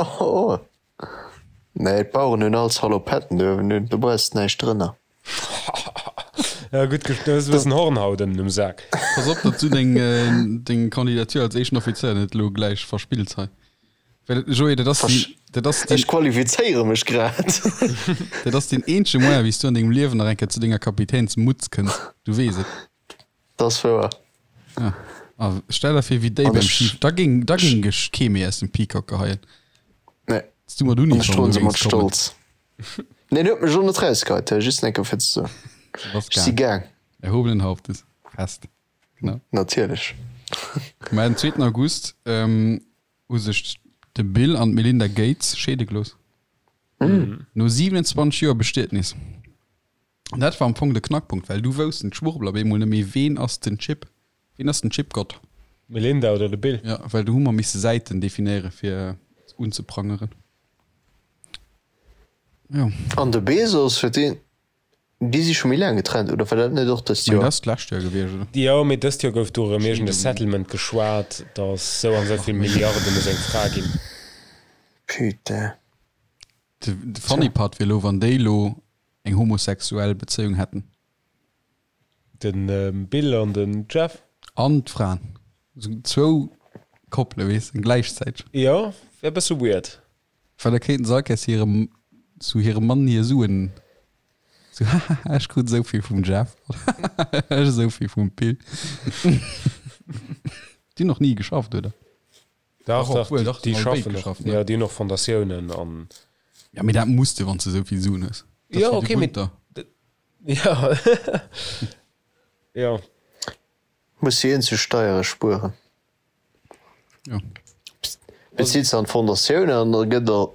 Oh, nee, d'Baueren hunn all Salopetten uewen un, do brauchs de näischt drënner. Ja, gutt, du hues e bëssen Hornhaut ënnen um Sak. Pass op, datt du deng, deng Kandidatur als éischten Offizéier net elo gläich verspills hei. Well, Joé, dat ass deen, dat ass deen. Ech qualifizéiere mech grad. Dat ass deen eenzege Moyen, wéi s du an dengem Liewen nach eng Kéier zu denger Kapitänsmutz kënns. Du weess et. Dat ass wouer. Ja. A stell der vir, wéi déi An beim ech- Ski, da géing, da géing ech kee méi aus dem Peacock geheien. Nee. Dass du mat An ech Uniform droen do se mat géings kommen. Stolz. Neen, huet mech och net rausgeheit, just eng Kéier fir ze soen. Du bass Ech si gaang. gaang. Erhobenen Hauptes. Fest. Genau. Natierlech. Mä den zweeten August hu sech de Bill an d'Melinda Gates scheede gelooss. No 27 Joer Bestietnis. An dat war am Fong de Knackpunkt, well du woussten d'Schwurbler op eemol net méi, ween ass den Chip, ween ass den Chipgott. D'Melinda oder de Bill? Jo, well du hu mer misse Säiten definéiere fir unzeprangeren. Jo. An de Bezos, huet deen, déi si scho méi laang getrennt, oder war dat net och dëst Joer? Dat ass d'lescht Joer gewiescht, oder? Jo, mee dëst Joer gouf do erëm iergend e Settlement geschwat, datt sou an sou vill Milliarden u seng Fra ginn. Putain. De funny part wier elo, wann déi elo eng homosexuell Bezéiung hätten. De Bill an den Jeff. An d'Fraen. Esou zwou Koppele, weess de, gläichzäiteg. Jo, wär e bësse weird. Well da kéinten se all Kéiers hirem, zu hirem Mann hir Suen, sou, hahaha, ech krut esou vill vum Jeff, hahaha, ech esou vill vum Bill. Déi hunn och ni geschafft, oder? Dach, dach, obwohl, dach, déi schaffen och, ne? Jo, déi hunn och Fondatiounen an. Ja, mee dat muss de, wann s de esou vill Suen hues. Dat jo, okay, mee. Ja, ja. Muss déi eenzeg Steiere spueren. Jo. Bezills de an d'Fondatioun an da gëtt der,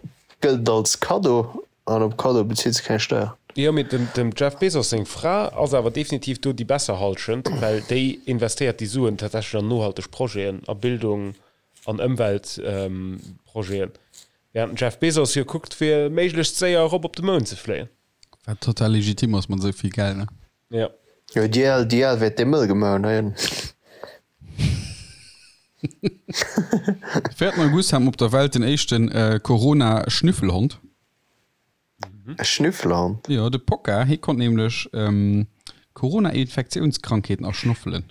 gëllt et als Kaddo an op Kaddo bezills de keng Steier. Jo, mee dem, dem Jeff Bezos seng Fra ass awer definitiv do déi besser Hallschent, well déi investéiert déi Suen tatsächlech an nohalteg Projeten, a Bildung, an Ëmweltprojeten, während den Jeff Bezos jo kuckt fir méiglechst séier erop op de Mound ze fléien. Wat total legitim ass mat esou vill Geld, ne? Jo. Jo, déi al, déi al wäert dee mëll gemaach hunn heihin. De 4 August hat mer op der Welt den éischte Corona-Schnüffelhond. E Schnüffelhond? Jo, de Pokka, hie konnt nämlech Corona-Infektiounskrankheeten erschnoffelen.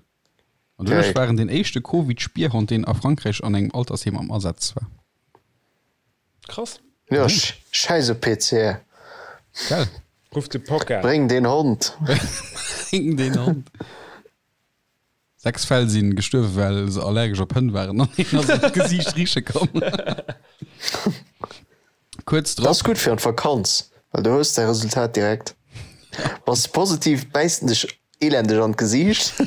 An doduerch war en den éischte Covid-Spierhond, deen a Frankräich an engem Altersheem am Asaz war. Krass. Jo, schäiss op PCR. Gell? Ruff de Pokka. Bréng deen Hond. Bréng deen Hond. 6 Fäll sinn gestuerwen, well se allergesch op Hënn waren an een ass an d'Gesiicht riche komm. Kuerz drop. Dat ass gutt fir an d'Vakanz, well du hues däi Resultat direkt. Bass de positiv, bäisst en dech elendeg an d'Gesiicht,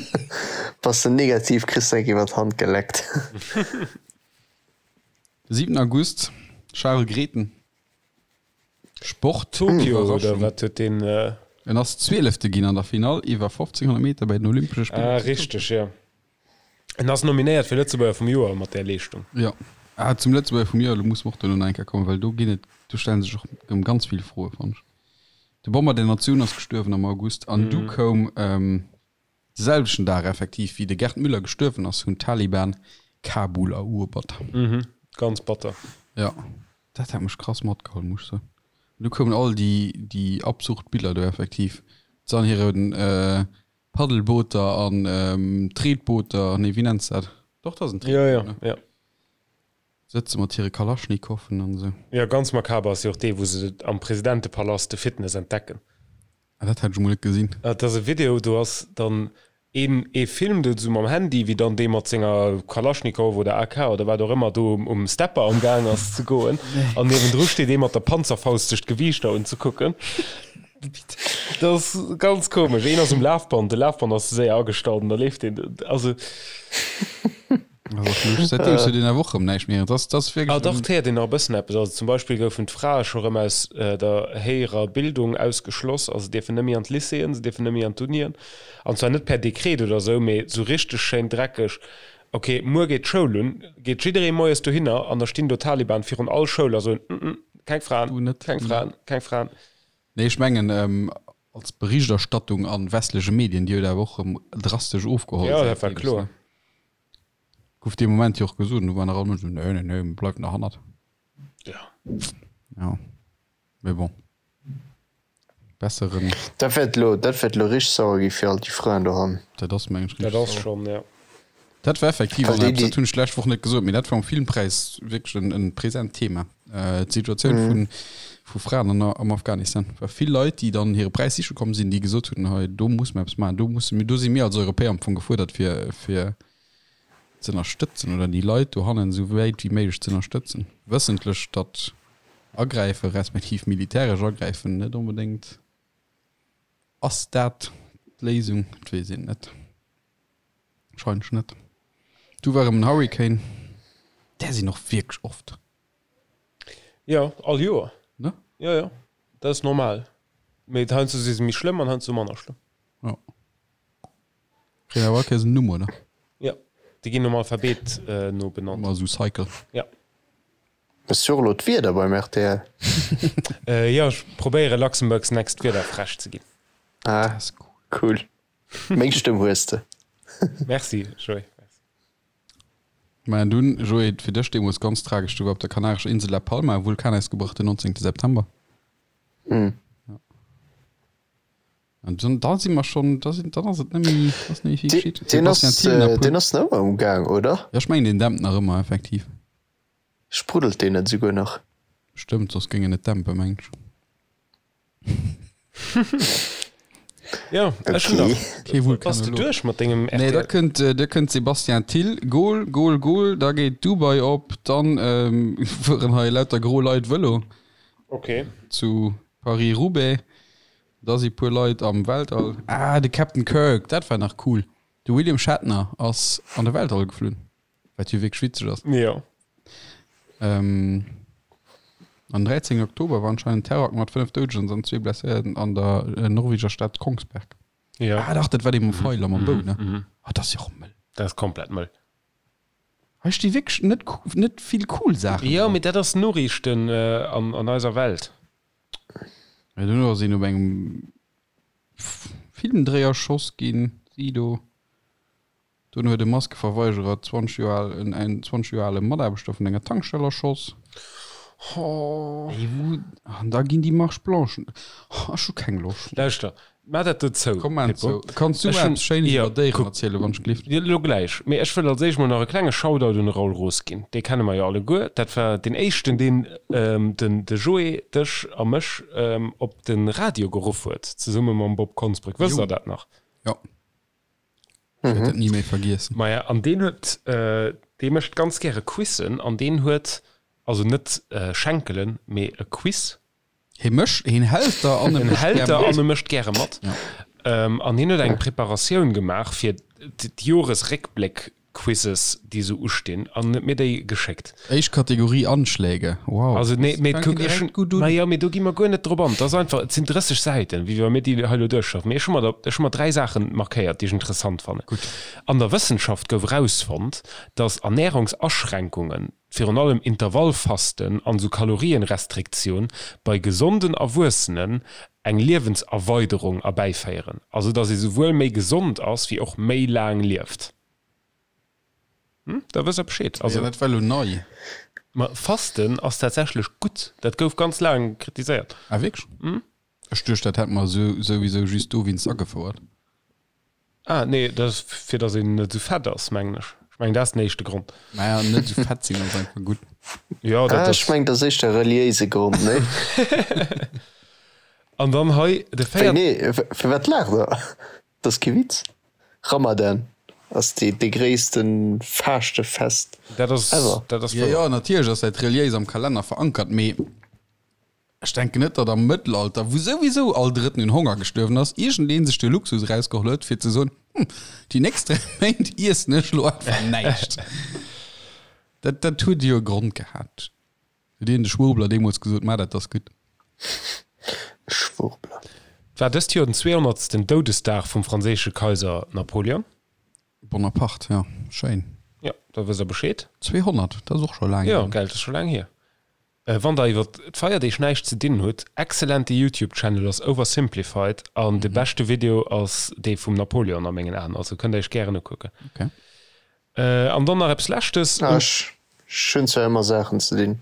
bass de negativ, kriss de eng iwwer d'Hand geleckt. De 7 August, Charel Grethen. Sport, Tokio oder wat huet deen? En ass Zwielefte ginn an der Finall iwwer 1500 Meter bei den Olympesche Spiller. Ah richteg, jo. En ass nominéiert fir Lëtzebuerger vum Joer mat där Leeschtung. Jo. Ah, zum Lëtzebuerger vum Joer, do musse mer och duerno nach eng Kéier kommen, well do ginn et, do stelle sech och erëm ganz vill Froe, fannen ech. De Bomber der Natioun ass gestuerwen am August an du koum De selwechten Dag effektiv wéi de Gerd Müller gestuerwen ass, hunn d'Taliban Kabul eruebert. Mhm, ganz batter. Jo, dat hat mech krass matgeholl, muss ech soen. An du koumen all déi, déi absurd Biller do effektiv, se an hire Paddelbooter an Tretbooter, nee wéi nenns de dat? Doch, dat ass en Tretboot, ne? Jo, jo, jo. Sëtze mat hire Kalaschnikoffen an esou. Jo, ganz makaber ass jo och dee, wou se am Presidentepalast de Fitness entdecken. Ah, dat hat ech emol net gesinn. Et ass e Video, do ass dann een, ee filmt et esou mam Handy, wéi dann dee mat senger Kalaschnikow oder AK oder wat och ëmmer do um Stepper am Gaang ass ze goen. An niewendru steet ee mat der Panzerfaust sech d'Gewiichter unzekucken. Dat ass ganz komesch. Een ass um Lafband, de Lafband ass ze séier agestallt an da leeft deen. Also. Seitdeem huet een awer och rëm näischt méi. Dat ass wierklech. Ah dach, et héiert een nach e bëssen eppes. Also zum Beispill goufen d'Frae scho rëm aus der héijerer Bildung ausgeschloss. Also se dierfen net méi an d'Lycéeën, se dierfen net méi an d'Unien. An zwar net per Dekret oder esou, mee esou richteg schéin dreckeg, Ok, muer geet d'Schoul un, geet jidderee moies dohinner an da stinn do Taliban virun all Schoul a soen, Mm, mm, keng Fraen, keng Fraen, keng Fraen. Nee, ech mengen als Berichterstattung a westleche Medien, déi huet awer och erëm drastesch ofgeholl. Jo, dat war kloer. Gouf dee Moment jo och gesot, an du war nach all Mënsch esou, nee, nee, nee, mir bleiwen derhannert. Ja. Ja, mee bon. Besseren. Dat wäert elo, dat wäert elo richteg sauer gi fir all déi Fraen dohannen. Dat ass, meng ech, richteg sauer. Dat ass schonn, ja. Dat war effektiv an eppes, dat hunn ech d'lescht Woch net gesot, mee dat war um Filmpräis wierklech en, en present Thema. D'Situatioun vun, vu Fraen an, am Afghanistan. War vill Leit, déi dann hire Präis siche komm sinn, déi gesot hunn, hei do muss mer eppes maachen, do musse mir, do si mir als Europäer am Fong gefuerdert fir, fir ze ënnerstëtzen oder déi Leit dohannen esou wäit wéi méiglech ze ënnerstëtzen. Wëssentlech, datt agräife respektiv militäresch agräifen net onbedéngt Ass dat. D'Léisung? Et weess een net. Wahrscheinlech net. Du war erëm en Hurricane. Där sinn och wierklech oft. Jo, all Joer. Ne? Jo, jo, dat ass normal. Mee heiansdo si se méi schlëmm an heiansdo manner schlëmm. Jo. Kréien awer all Kéiers en Numm, oder? Jo, déi ginn nom Alphabet no benannt. Ëmmer esou Cycle. Jo. Hues du och elo d'Wieder beim rtl? Jo, ech probéiere Luxembourg's Next Wiederfräsch ze ginn. Ah, cool. Meng Stëmm hues de. Merci, Joé. Maja, dunn, Joé, fir dech deemools ganz tragesch, du war op der kanarescher Insel La Palma e Vulkanausgebroch den 19. September. Mm. Ja. An dann, da si mer schonn, da sinn, dann ass et net méi, ass net méi vill geschitt. Deen ass, Sebastian Thill nach puer. deen ass nach ëmmer um Gaang, oder? Ja, ech mengen, deen dämpt nach ëmmer, effektiv. Spruddelt deen net esouguer nach? Stëmmt, soss géing en net dämpen, mengen ech. Jo, ech hunn Okay. nach. Kee Bass de Vulkanolog. duerch mat dengem Nee, da rtl? kënnt, da kënnt Sebastian Thill, Goal, Goal, Goal, da geet Dubai op, dann fueren hei lauter gro Leit Vëlo Okay. zu Paris-Roubaix, da si puer Leit am Weltall. Ah, de Captain Kirk, dat war nach cool. De William Shatner ass an de Weltall geflunn. Wat jo wierklech witzeg ass. Jo. Ähm, am 13. Oktober war anscheinend Terrorakt mat 5 Doudegen an zwee Blesséierten an der äh, norweger Stad Kongsberg. Ja. Ah, dach, dat war dee mam Feil a mam Bou, ne? Mhm. Ah, dat ass jo och mëll. Dat ass komplett mëll. Hei sti wierklech net, net vill cool Saachen Jo, dran. mee dat ass Noriichten äh, an, an eiser Welt. Ja, duerno ass een op engem Filmdréi erschoss ginn, Sido. Dunn huet e Maskeverweigerer 20 Joer al en en 20 Joer ale Mataarbechter vun enger Tankstell erschoss. Ey, wou, an da ginn déi Marche Blanchen. Ech hu keng Loscht méi. Lauschter, maach dat do zou, Komm, maan Pippo. zou. Kanns du Ech mer hunn, eppes Schéines jo, iwwer Déieren kuck, erzielen, wann ech gelift? Jo, elo gläich. Mee ech wëll als éischt mol nach e klenge Shoutout un de Raoul Roos ginn. Dee kenne mer jo alleguer. Dat war deen éischten, deen den de Joé, dech a mech op de Radio geruff huet, zesumme mam Bob Konsbrück. Wësst Jo. Der dat nach? Jo. Ech wäert dat ni méi vergiessen. Maja, an deen huet, dee mécht ganz gäre Quizzen an deen huet, also net Schenkelen, mee e Quiz. Hie mécht, hien hält der an e En mécht hält gär der mat. an e mécht gäre mat. Ja. An hien huet eng Preparatioun gemaach fir d'Joresréckbléck Quizzes déi sou ustinn an huet mir déi geschéckt. Éischt Kategorie Anschläge, wow. Also nee, mee fänken kuck, ech direkt hunn, gutt un. ma jo, mee do gi mer guer net drop an. Et ass einfach, et sinn 30 Säiten, wéi wa mir déi hei elo duerchschaffen. Mee ech hu mer der, ech hu mer 3 Saachen markéiert, déi ech interessant fannen. Gutt. An der Wëssenschaft gouf erausfonnt, dass Ernärungsaschränkungen, virun allem Intervallfasten an sou Kalorienrestriktioun, bei gesonden Erwuessenen eng Liewenserweiderung erbäiféieren. Also dass ee souwuel méi gesond ass, wéi och méi laang lieft. Hm, da wësst der Bescheed. Also, ja, dat war lo nei. Ma Fasten ass tatsächlech gutt. Dat gouf ganz laang kritiséiert. Ah, wierklech? Hm? Ech duecht, dat hätt mer sou, souwisou just dowéinst agefouert. Ah, nee, dat ass fir datt een net esou fett ass, mengen ech. Ech mengen, dat ass den éischte Grond. Naja, net esou fett sinn ass einfach gutt. Ja, dat Ah, ass. ech mengen, dat ass éischter e reliéise Grond, nee? An dann hei de Wéi, véiert. nee, firwat laacht der? Dat ass kee Witz. Ramadan ass dee dee gréisste Faaschtefest Dat ass, ever. dat ass Jo, wouer. jo, natierlech ass dat reliéis am Kalenner verankert, mee ech denken net, datt am Mëttelalter, wou souwisou all Drëtten un Honger gestuerwen ass, iergendeen sech de Luxus erausgeholl huet, fir ze soen, Hm, déi nächst 3 Méint iessen ech elo einfach näischt. Dat, dat huet jo e Grond gehat. Huet een de Schwurbler deemools gesot, Maach dat, dat ass gutt. Schwurbler. Et war dëst Joer den 200. Doudesdag vum franséische Kaiser Napoleon. Bonaparte, jo, schéin. Jo, da wësst der Bescheed. 200, dat ass och scho laang Jo, hier. gell, dat ass scho laang hier. Wann der iwwer d'Feierdeeg näischt ze dinn hutt, excellente Youtube Channel ass Oversimplified an de beschte Video ass dee vum Napoleon a mengen Aen, also kënnt der iech gären ukucken. Okay. An dann nach eppes Leschtes. Ah, ech hunn zwar ëmmer Saachen ze dinn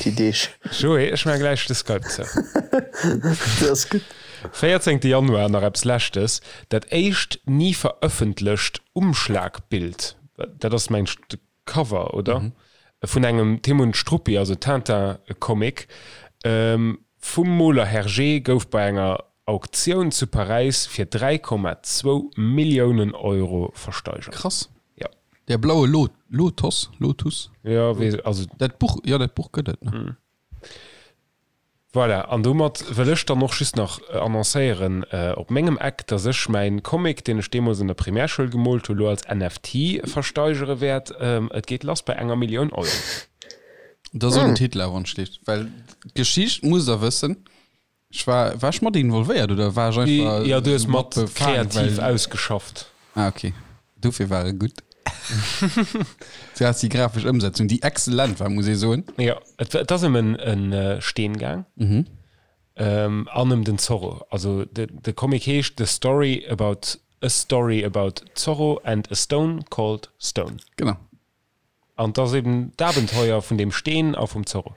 déi Deeg. Joé, ech maache gläich de Skype zou. Dat ass gutt. 14 Januar, nach eppes Leschtes, Dat éischt ni verëffentlecht Umschlagbild, dat ass mengt ech de Cover, oder? Vun engem Tim und Struppi, also Tintin-Comic, vum Moler Hergé gouf bei enger Auktioun zu Paräis fir 3,2 Milliounen Euro versteigert. Krass. Ja. Der blaue Lo Lotos, Lotus? Ja, weess, also. Dat Buch, jo, dat Buch gëtt et, ne? Voilà, an domat wëll ech dann och just nach annoncéieren op mengem Eck, dass ech mäin Comic, deen ech deemools an der Primärschoul gemoolt hu, lo als NFT versteigere wäert. Et geet lass bei enger Millioun Euro. Da so den Titel awer entsteet, well d'Geschicht musst der wëssen. Ech war, war ech mat involvéiert oder war ech einfach Jo, du hues mat kreativ ausgeschafft. Ah, okay. Dofir war e gutt. Du has déi grafesch Ëmsetzung, déi exzellent war, muss ee soen. Jo, et, et ass ëm en, en Steen gaang. Mhm. An ëm den Zorro. Also de, de Comic heescht The Story about A Story about Zorro and a Stone called Stone. Genau. An 't ass eben d'Abenteuer vun deem Steen a vum Zorro.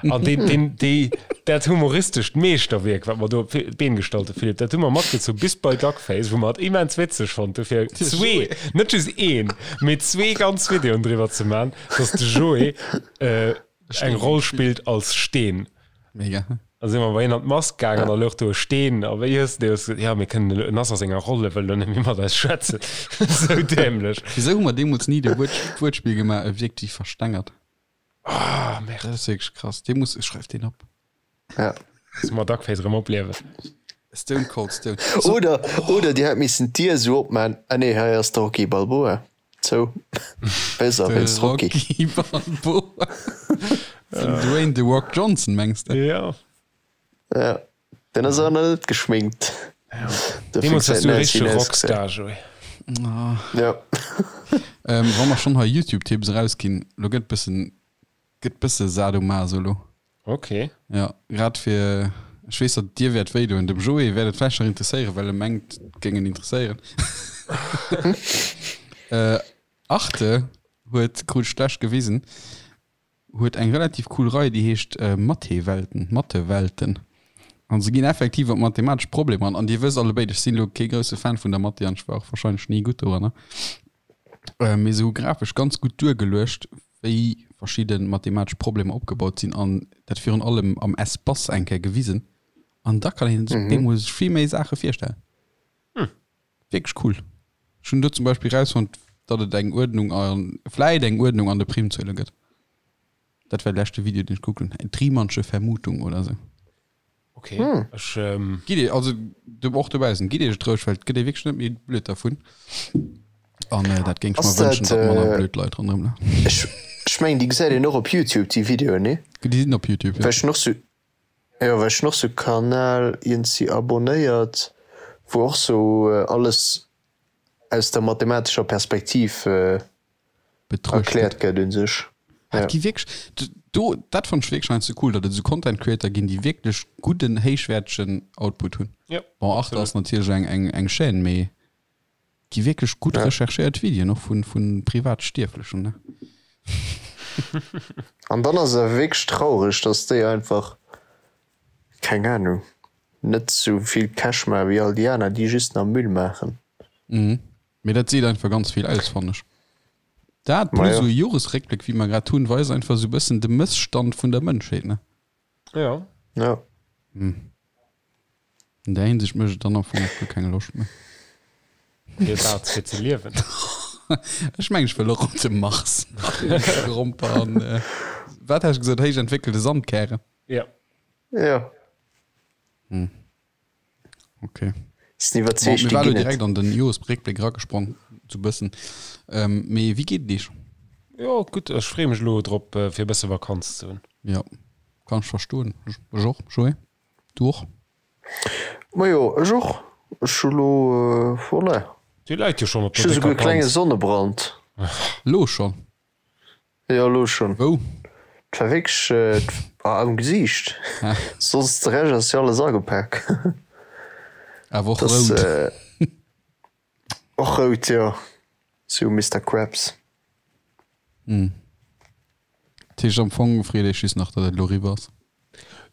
An deen, deen, déi, dat humoristescht Meeschterwierk, wat mer do op d'Been gestallt hu, Philippe, dat hu mer matgezu bis bei Duckface, wou mer et immens witzeg fonnt hu fir zwee, net just een, mee zwee ganz Videoen driwwer ze man, dass de Joé eng Roll spillt als Steen. Mega. Da si mer bei hien an d'Mask gaangen an da louch do e Steen. A wéi hues de gesot, jo, mir kënnen elo, en ass a senger Roll, e wëll elo net méi mat eis schwätzen. Esou dämlech. Wisou hu mer deemools ni de Wuert, d'Wuertspill gemaach, e wierkt wéi verstengert? Ah, merde. Dat ass wierklech krass. Dee muss, schreif deen op. Ja. Loosse mer Duckface erëm opliewen. Stone Cold Stone. Oder, oder dir hätt missen d'Dier esou opman, ah nee, hei ass de Rocky Balboa. Zou. Besser wéinst Rocky. Rocky Balboa. Den Dwayne The Rock Johnson, mengs de? Ja. Ja. Den ass awer nach net geschminkt. Ja. Deemools waars du e richtege Rockstar, Joé. Ja. Ähm, wa mer schonn hei YouTube-Tipps erausginn, lo gëtt bëssen, gëtt bësse Sadomaso lo. Ok. Ja, grad fir, ech weess, datt dir wäert wéi doen. Dem Joé wäert et vläicht nach interesséieren, well e mengt, et géing en interesséieren. Arte huet, krut ech d'lescht gewisen, huet eng relativ cool Rei, déi heescht Mathé-Welten, Mathe-Welten. An se ginn effektiv op mathematesch Problemer an. An dir wësst allebéid, ech sinn elo kee grousse Fan vun der Mathé an ech war och warscheinlech ni gutt doranner. Mee se hu grafesch ganz gutt duergeluecht, wéi verschidde mathematesch Problemer opgebaut sinn an dat virun allem am Espace eng Kéier gewisen. An da kann een sech deemools sech vill méi Saache virstellen. Wierklech cool. Ech hunn do zum Beispill erausfonnt, datt et eng Uerdnung a vläit eng Uerdnung an de Primzuele gëtt. Dat war de leschte Video, deen ech gekuckt hunn. D'Riemannsche Vermutung oder sou. Okay. Hm. Ech, ähm... Gitt Dir, also du, och dobaussen, gitt Iech et roueg, well et gëtt ee wierklech net méi blöd dervun. An äh, dat géing ech mer wënschen, datt manner äh, blöd Leit ronderëm lafen. Ech, ech mengen, déi gesäit een och op YouTube, déi Videoen, nee? Déi sinn op YouTube, ja. Well ech hunn och sou, jo, well ech hunn och sou Kanal iergendwéi abonnéiert, wou och sou alles aus der mathematescher Perspektiv Betruecht erkläert gëtt un sech. Ja. Et gi wierklech, do, dat fannt ech wierklech heiansdo cool, datt et esou Content Creator ginn, déi wierklech gudden, héichwäertegen Output hunn. Ja, Bon, Arte ass natierlech eng, eng, eng Chaîne, mee gi wierklech gutt Ja. recherchéiert Videoen, och vu, vu privat Stierflechen, ne? An dann ass et awer wierklech traureg, datt déi einfach, keng Ahnung, net sou vill Cash maache wéi all déi aner, déi just nach Müll maachen. Mhm. Mee dat seet einfach ganz vill aus, fannen ech. Dat plus esou e Joresréckbléck, wéi mer grad hunn, weist einfach esou e bëssen de Mësstand vun der Mënschheet, ne? Jo. Jo. Hm. An där Hinsicht mécht et dann am Fong och guer keng Loscht méi. Fir wat? Fir ze liewen? Ech mengen, ech wëll och op de Mars. Gromper an, wat has de gesot, héich entwéckelte Sandkären? Jo. Jo. Hm. Okay. Sinn iwwerzeegt, Bon, déi mir war ginn et. direkt an den Joresréckbléck eragesprong, sou bëssen. Ähm, mee wéi geet et iech? Jo, gutt. Ech freeë mech elo drop, fir e bësse Vakanz ze hunn. Jo, kann ech verstoen. Ech och, Joé. Du och? Majo, ech och. Ech hu lo, voilà. Dir läit jo schonn op Ech der hu souguer décker e klenge Panz. Sonnebrand. Lo schonn? Jo, elo schon. Wou? Et war wierklech am Gesiicht. Soss de Rescht ass jo alles agepak. Awer och rout. Och rout, jo. Sou Mister Krabs. Dat heescht am Fong freet Iech just nach, datt et elo eriwwer ass.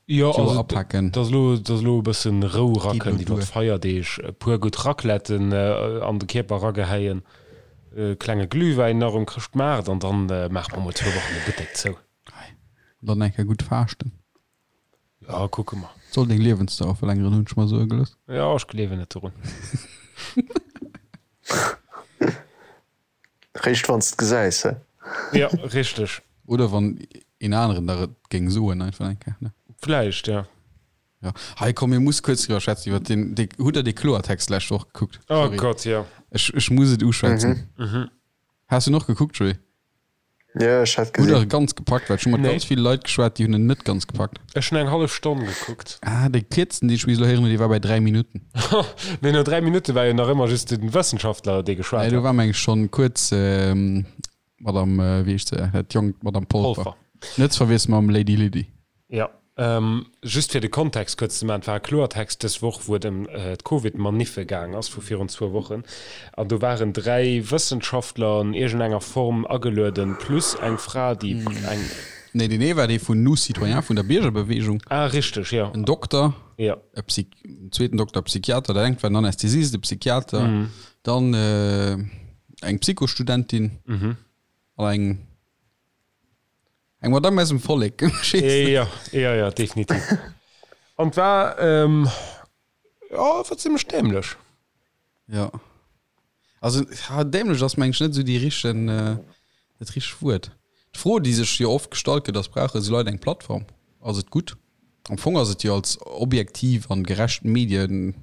Jo, Joer also apaken. dass elo, dass elo e bëssen Rou Geet rakënnt elo iwwer duer. d'Feierdeeg, e puer gutt Racletten an de Kierper ragehäien, e klenge Glühwäin nach um Chrëschtmaart an dann maache mer mol zwou Wochen de Buttek zou. Hei. An dann eng Kéier gutt faaschten. Jo, kucke mer. Soll deng Liewensdauer verlängeren, hunn ech mer soe gelooss. Jo, ech gleewen net dorun. Réischt wann s de gesäis, he? Jo, richteg. Oder wann een aneren der et géing soen, einfach eng Kéier, ne? Vläicht, ja. Ja. Hei komm, mir muss kuerz driwwer schwätzen iwwer den, dee, hutt der dee Kloertext d'lescht Woch gekuckt? Oh Sorry. Gott, ja. Ech, ech muss et uschwätzen. Mhm. Has du en och gekuckt, Joé? Ja, ech hat Hutt der e ganz gepackt? Well ech hu mat Nee. ganz ville Leit geschwat, déi hunn en net ganz gepackt. Ech hunn eng hallef Stonn gekuckt. Ah, dee kierzesten, deen ech bis elo héieren hunn, dee war bei 3 Minutten. Mee no 3 Minutte war jo nach ëmmer just den Wëssenschaftler, dee geschwat Nee, do hat. war meng ech schonn kuerz Madame, wéi heescht se, dat jonkt Madame Polfer. Polfer. Net ze verwiessele mam Lady Lydie. Jo, just fir de Kontext kuerz ze maachen, Et war e Kloertext dës Woch, wou et ëm d'Covid-Maniffe gaang ass vu virun zwou Wochen. An do waren 3 Wëssenschaftler an iergendenger Form agelueden, plus eng Fra, déi eng. Nee, deen ee war dee vun Nous Citoyens, vun der Biergerbeweegung. Ah, richteg, jo. En Dokter, Jo. e Psy-, en zweeten Dokter, Psychiater, dat engt war en Anästhesist, e Psychiater, dann eng Psychostudentin an eng. Eng Madame aus dem Vollek. Jo, jo, jo, definitiv. An et war, ähm, jo, et war zimmlech dämlech. Jo. Also, ja, dämlech ass, meng ech, net esou déi richten, dat richtegt Wuert. D'Fro, déi sech jo oft gestallt gëtt, ass, Brauche esou Leit eng Plattform? Ass et gutt? Am Fong ass et jo als objektiv an gerecht Medien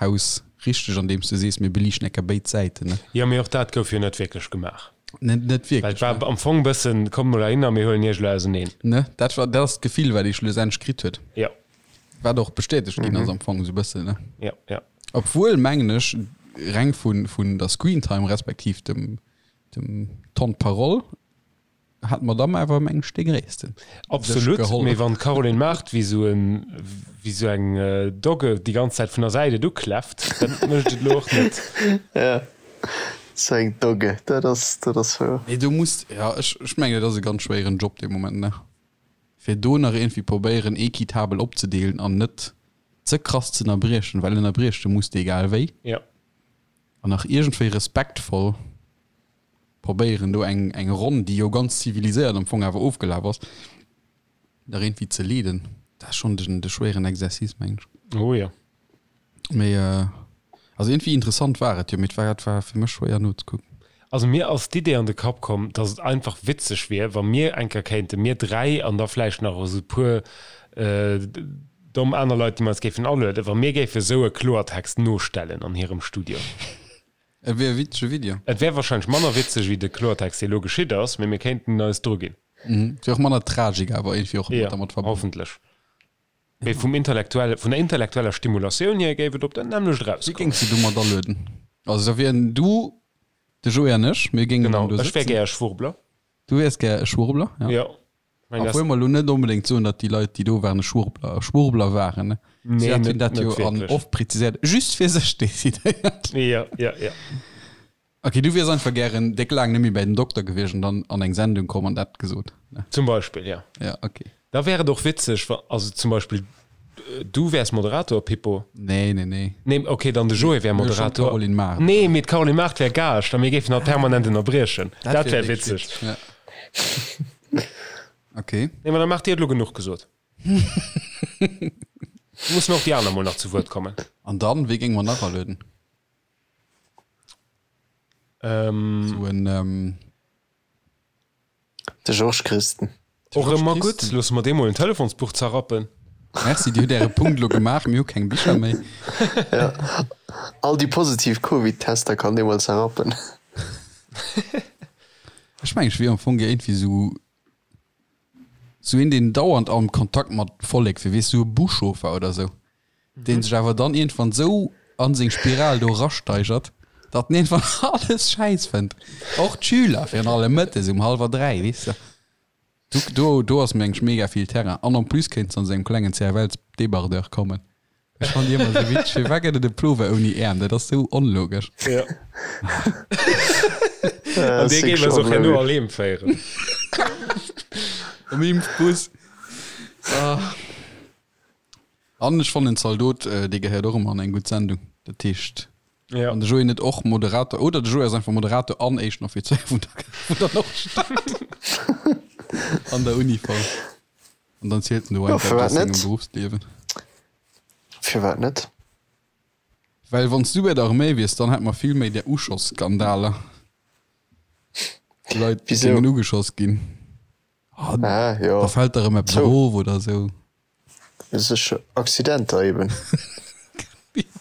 Haus richteg an deems de sees mir beliichten eng Kéier béid Säiten ne? Jo, mee och dat gouf jo net wierklech gemaach. Net net Well wierklech et war ne. am Fong bëssen, kommt mol heihinner, mir huelen iech elo auseneen. Ne, dat war dat ass d'Gefill wat ee schlussendlech kritt huet. Jo. Wat och bestätegt ginn ass am Fong esou bëssen ne. Jo, jo. Obwuel mengen ech reng vun vun der Screentime respektiv dem dem Temps de parole Hat d'Madame awer mengen ech dee gréissten sech Absolut, geholl. mee wann d'Caroline Mart wéi sou en, wéi sou eng Dogge déi ganz Zäit vun der Säit et ukläfft, dat mécht et elo och net. Ja, sou eng Dogge, dat ass, dat ass wouer. Mee do muss, ja ech, ech mengen et ass e ganz schwéieren Job dee Moment, ne? Fir do nach iergendwéi probéieren equitabel opzedeelen an net ze krass ze ënnerbriechen, well ënnerbrieche muss de egal wéi. Ja. An nach iergendwéi respektvoll. Probéieren do eng eng Ronn, déi jo ganz ziviliséiert am Fong awer ofgelaf ass, nach iergendwéi ze leeden. Dat ass schonn den de schwéieren Exercice, mengen ech. Oh jo. Mee also iergendwéi interessant war et jo, mee et war et war fir mech schwéier nozekucken. Also mir ass d'Idee an de Kapp komm, dass et einfach witzeg wier, wa mir eng Kéier kéinten, mir 3 an da vläicht nach esou e puer domm aner Leit, déi mer eis géifen alueden, wa mir géife sou e Kloertext nostellen an hirem Studio. Et wier e witzege Video. Et wär wahrscheinlech manner witzeg wéi de Kloertext dee lo geschitt ass, mee mir kéinten eis dru ginn. Et wier och manner Tragik awer iergendwéi och Jo, dermat verbonnen. hoffentlech. Mee vum intellektuelle, vun der intellektueller Stimulatioun hier géif et op dat nämmlecht Wie erauskommen. géings de domat alueden? Also da wieren du, de Joé an ech, mir géingen Genau, dann do ech wär sëtzen. gär e Schwurbler. Du wiers gär e Schwurbler, ja. Jo. Mein, Obwuel mer elo net onbedéngt soen, datt déi Leit, déi do waren, e Schwurbler, Schwurbler waren. Ne? Nee, Si hat net, hunn dat net jo an wierklech. oft präziséiert, just fir sech decidéiert. Ja, ja, ja. Okay, du wiers einfach gären déck laang net méi bäi den Dokter gewiescht an dann an eng Sendung komm an dat gesot. Ne? Zum Beispill, ja. Ja, okay. Da wär et och witzeg, wa, also zum Beispill du wärs Moderator, Pippo. Nee, nee, nee. Nee, okay, dann de Joé wär Mir hu schon Moderator. d'Caroline Mart. Nee, mee d'Caroline Mart wär Gaascht a mir géifen hatt permanent ënnerbriechen. Dat wär wierklech witzeg. Ja. Okay. Nee, ma dann maacht Dir et elo genuch gesot. Mussen och déi aner mol nach zu Wuert kommen. An dann, wee géinge mer nach alueden? Ähm. Sou en, ähm. De Georges Christen. Och ëmmer gutt. Loosse mer deem mol en Telefonsbuch zerrappen. Merci, Dir hutt Äre Punkt elo gemaach. Mir hu keng Bicher méi. Ja, all déi positiv Covid-Tester kann dee mol zerrappen. Ech mengen, ech wier am Fong gär iergendwéi sou, sou een, deen dauernd am Kontakt mat Vollek wier, weess, sou e Buschauffer oder sou. deen sech awer dann iergendwann sou an seng Spiral do erasteigert, datt en iergendwann alles schäiss fënnt. Och d'Schüler, virun allem mëttes um hallwer 3, weess de. Do, do, do ass mengen ech mega vill Terrain. An en plus kéints de an sou engem klengen CFL-Débardeur kommen. Ech fannen déi ëmmer sou witzeg. Firwat gëtt et e Plover ouni Äerm? Dat ass sou onlogesch. Ja. An dee géif eis och herno all heem féieren. Am Impfbus. Ah. An ech fannen Zaldot, dee gehéiert och ëmmer an eng gutt Sendung. Dat heescht, Ja. wann de Joé net och Moderator, oder de Joé ass einfach Moderator an éischten Offizéier vun der, vun der Nordstad an der Uniform. An dann zielt en do Jo, einfach firwat aus sengem net? Berufsliewen. Firwat net? Well wann s du bei der Arméi wiers, dann hätt mer vill méi där Uschoss-Skandaler. Wou Leit Wisou? géingen ugeschoss ginn. Ah, Ah, jo. da fält der erëm eppes Zou. erof oder sou. Sécher Accidenter eben.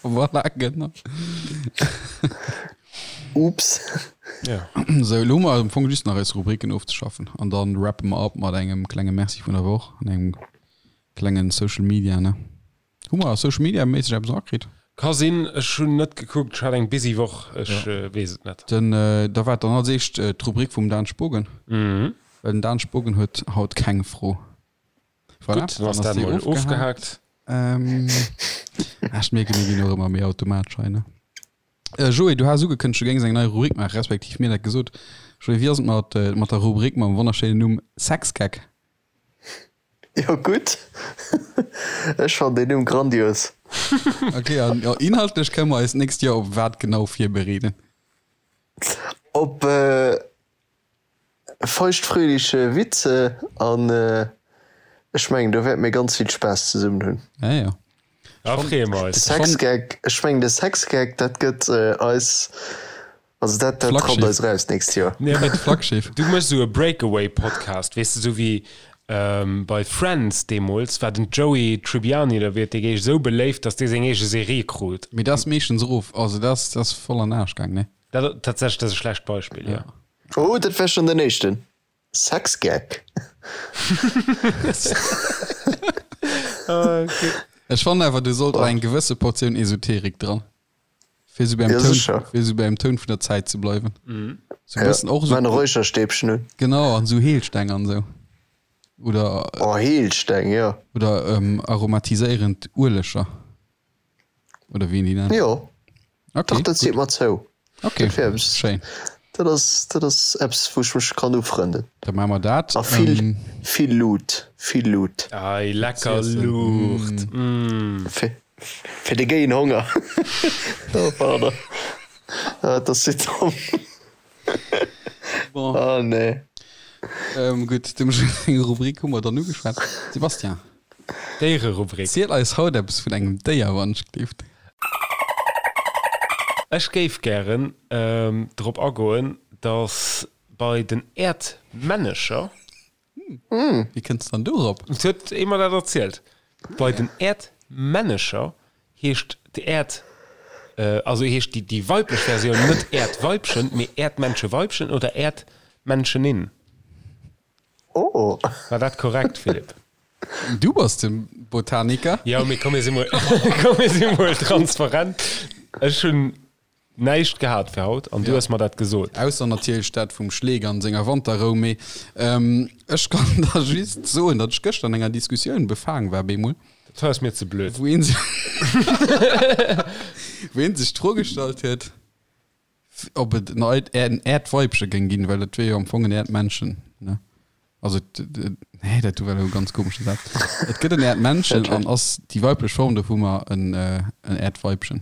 Voilà, genau. Oops. Ja. Sou, elo hu mer am Fong just nach eis Rubriken ofzeschaffen an dann rappe mer ab mat engem klenge Merci vun der Woch an engem klengen Social Media, ne? Hu mer Social Media méisseg eppes erakritt? Ka sinn, ech hunn net gekuckt, ech hat eng busy Woch, ech weess et net. Den, da war dann als éischt d'Rubrik vum Dan Spogen, well den Dan Spogen huet haut keng Fro. Voilà, Gutt, dann ass dat mol ofgehaakt. Ech mierken, mir ginn och ëmmer méi automatesch hei, ne? Joé, du has ugekënnegt, du géings eng nei Rubrik maachen, respektiv mir dat gesot. Joé, wéi ass et mat, mat der Rubrik mam wonnerschéinen Numm Sexgag? Jo gutt, ech fannen deen Numm grandios. Ok, an inhaltlech kënne mer eis d'nächst Joer op wat genau virbereeden? Op feuchtfröhliche Witze an ech mengen do wäerte mir ganz vill Spaass zesummen hunn. Ja, ja. Da freeë mer De eis. Sexgag, ech mengen de Sexgag dat gëtt eis Also dat, dat Flaggschiff. rappt eis raus d'nächst Joer. Nee, Dat Flaggschiff. Du méchs esou e Breakaway-Podcast, weess de, esou wéi ähm, bei Friends deemools war den Joey Tribbiani oder wéi et dee géich esou beléift, datt dee seng eege Serie krut. Mee dat ass meeschtens erof, also dat ass, dat ass voll an den Aarsch gaang, ne? Dat, tatsächlech, dat ass e schlecht Beispill, jo. Oh, dat war schon den éischten Sexgag. Ech fannen awer, do sollt och eng gewësse Portioun Esoterik dran. Fir sou beim Ja, Toun, sécher. fir sou beim Toun vun der Zäit ze bleiwen. Sou Ja, bëssen och maan e sou, Räucherstäbchen un. genau, an sou Heelsteng an sou. Oder, Oh, Heelsteng, jo. oder ähm, aromatiséierend Ueleger. Oder wéi een déi nennt. Jo, Okay, dach, dat seet gutt. mer zou. Okay, Dat wär eppes, schéin. dat ass, dat ass eppes, wou ech mech kann ufrënden. Da maache mer dat. A vill, Ähm, vill Luut, vill Luut. Ei, lecker Ziessen. Luucht. Mm. Fir, fir de géien Honger. Oh, pardon. Ah, dat ass sou domm. Bon. Ah, nee. Ähm, gutt, dem seng Rubrik hu mer dann ugeschwat. Sebastian. Déiererubrik. Ziel eis haut eppes vun engem Déier, wann ech gleeft. Ech géif gären drop agoen, dass bei den Äerdmännecher. Wéi kënns dann dorop? Et huet ee mer dat erzielt. Bei den Äerdmännecher heescht d'Äerd, also heescht déi weiblech Versioun net Äerdweibchen, mee Äerdmänncheweibchen oder Äerdmännchenin. Oh. War dat korrekt, Philippe? Du bass de Botaniker. Jo, mee komm mir si mol, komm mir si mol transparent. Ech hunn näischt gehat fir haut an du hues mer dat gesot. Ausser natierlech dat vum Schleek an senger Wanterrou. Mee ech kann der just soen, datt ech gëschter an enger Diskussioun befaang war bemol. Dat hei ass mir ze blöd. Wou een wou een sech d'Fro gestallt huet, Ob et en Äerdweibche géing ginn, well et wier jo am Fong en Äerdmännchen, ne? Also, nee, dat do war elo e ganz komesche Saz. Et gëtt en Äerdmännchen an ass déi weiblech Form dovunner en Äerdweibchen.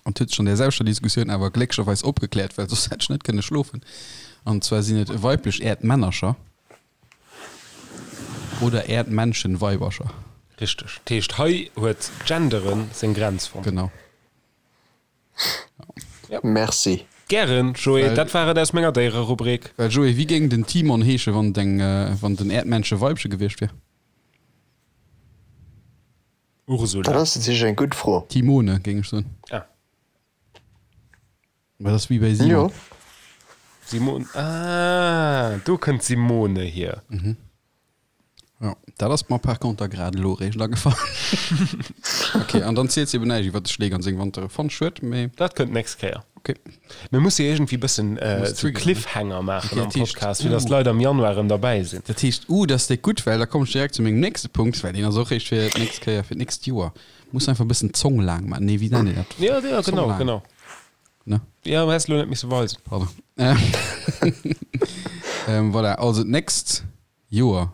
An et huet sech an där selwechter Diskussioun awer glécklecherweis opgekläert, well soss hätt ech net kënne schlofen. An zwar sinn et weiblech Äerdmännercher oder Äerdmännchen-Weibercher. Richteg. Dat heescht, hei huet Genderen seng Grenz fonnt. Genau. Merci. Gären, Joé. Dat war et aus menger Déiererubrik. Well Joé, wéi géing den Timon heesche wann et eng, wann et en Äerdmännche Weibche gewiescht wier? Ursula. Dat ass natierlech eng gutt Fro. Timone, géing ech soen. Ah. Mä dat ass wéi bäi Simon. Jo. Simon, ah, do kënnt Simone hier. Ja, dat ass mer par conter grad elo eréischt agefall. Ok, an dann zielt se eben näischt iwwer de Schleek an seng Wantere. Fonnt schued, mee. Dat kënnt d'nächst Kéier. Ok. Mir musse iergendwéi bëssen Muss sou triggeren, ne? Cliffhanger maachen Ok, am dat heescht, Podcast, fir dass uh. d'Leit am Januar erëm derbäi sinn. Dat heescht, uh, dat ass déck gutt, well da kommen ech direkt zu mengem nächste Punkt, well deen ass och réischt fir d'nächst Kéier, fir d'nächst Joer. Muss einfach e bëssen d'Zong laang maachen. Nee, wéi nennt een dat? Ja, ja, Zong genau, laang. genau. Ne? Ja, häss elo net misse weisen. Pardon. Ähm, voilà, also d'nächst Joer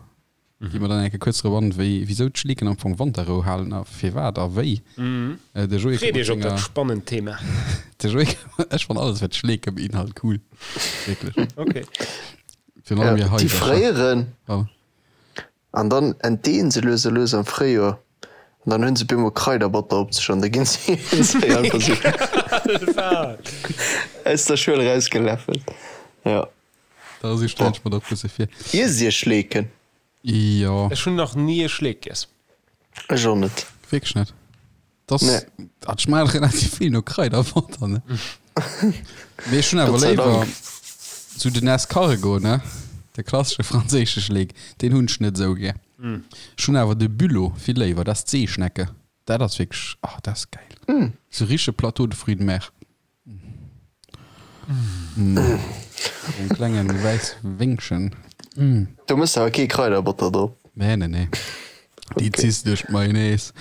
gi mer dann eng Kéier kuerz drop an, wéi, wisou d'Schleeken am Fong Wanterrou halen a firwat a wéi. De Joé Freet kënnt mat iech op dat senger, spannend Thema. de Joé, ech fann alles wat Schleeke beinhalt cool, wierklech. Okay. Virun allem hir Déi Haisercher. fréieren Oh. an dann entdeeën se lues a lues am Fréijoer an dann hunn se bemol Kraiderbotter op sech an da ginn se einfach sou aus der Schuel erausgeläffelt. Jo. Da esou stellen ech mer dat bësse vir. Iesst Dir Schleeken? Jo. Ech hunn nach ni e Schleek giess. Ech och net. Wierklech net? Das, Nee. Dat schmaacht relativ vill no Kraiderbotter, ne? Mee ech hunn awer Gott sei léiwer Dank. sou den Escargot, ne? De klassesche franséische Schleek, deen hunn ech net esou gär. Ech hunn awer de Bulot vill léiwer, dat ass d'Seeschnecke. Dat ass wierklech, ah, dat ass gäil. Sou richtege Plateau de fruits de mer. En klengen wäisse Wéngchen. Do mëss de awer kee Kraiderbotter drop. Nee, nee, nee. Déi ziss duerch d'Mayonnaise.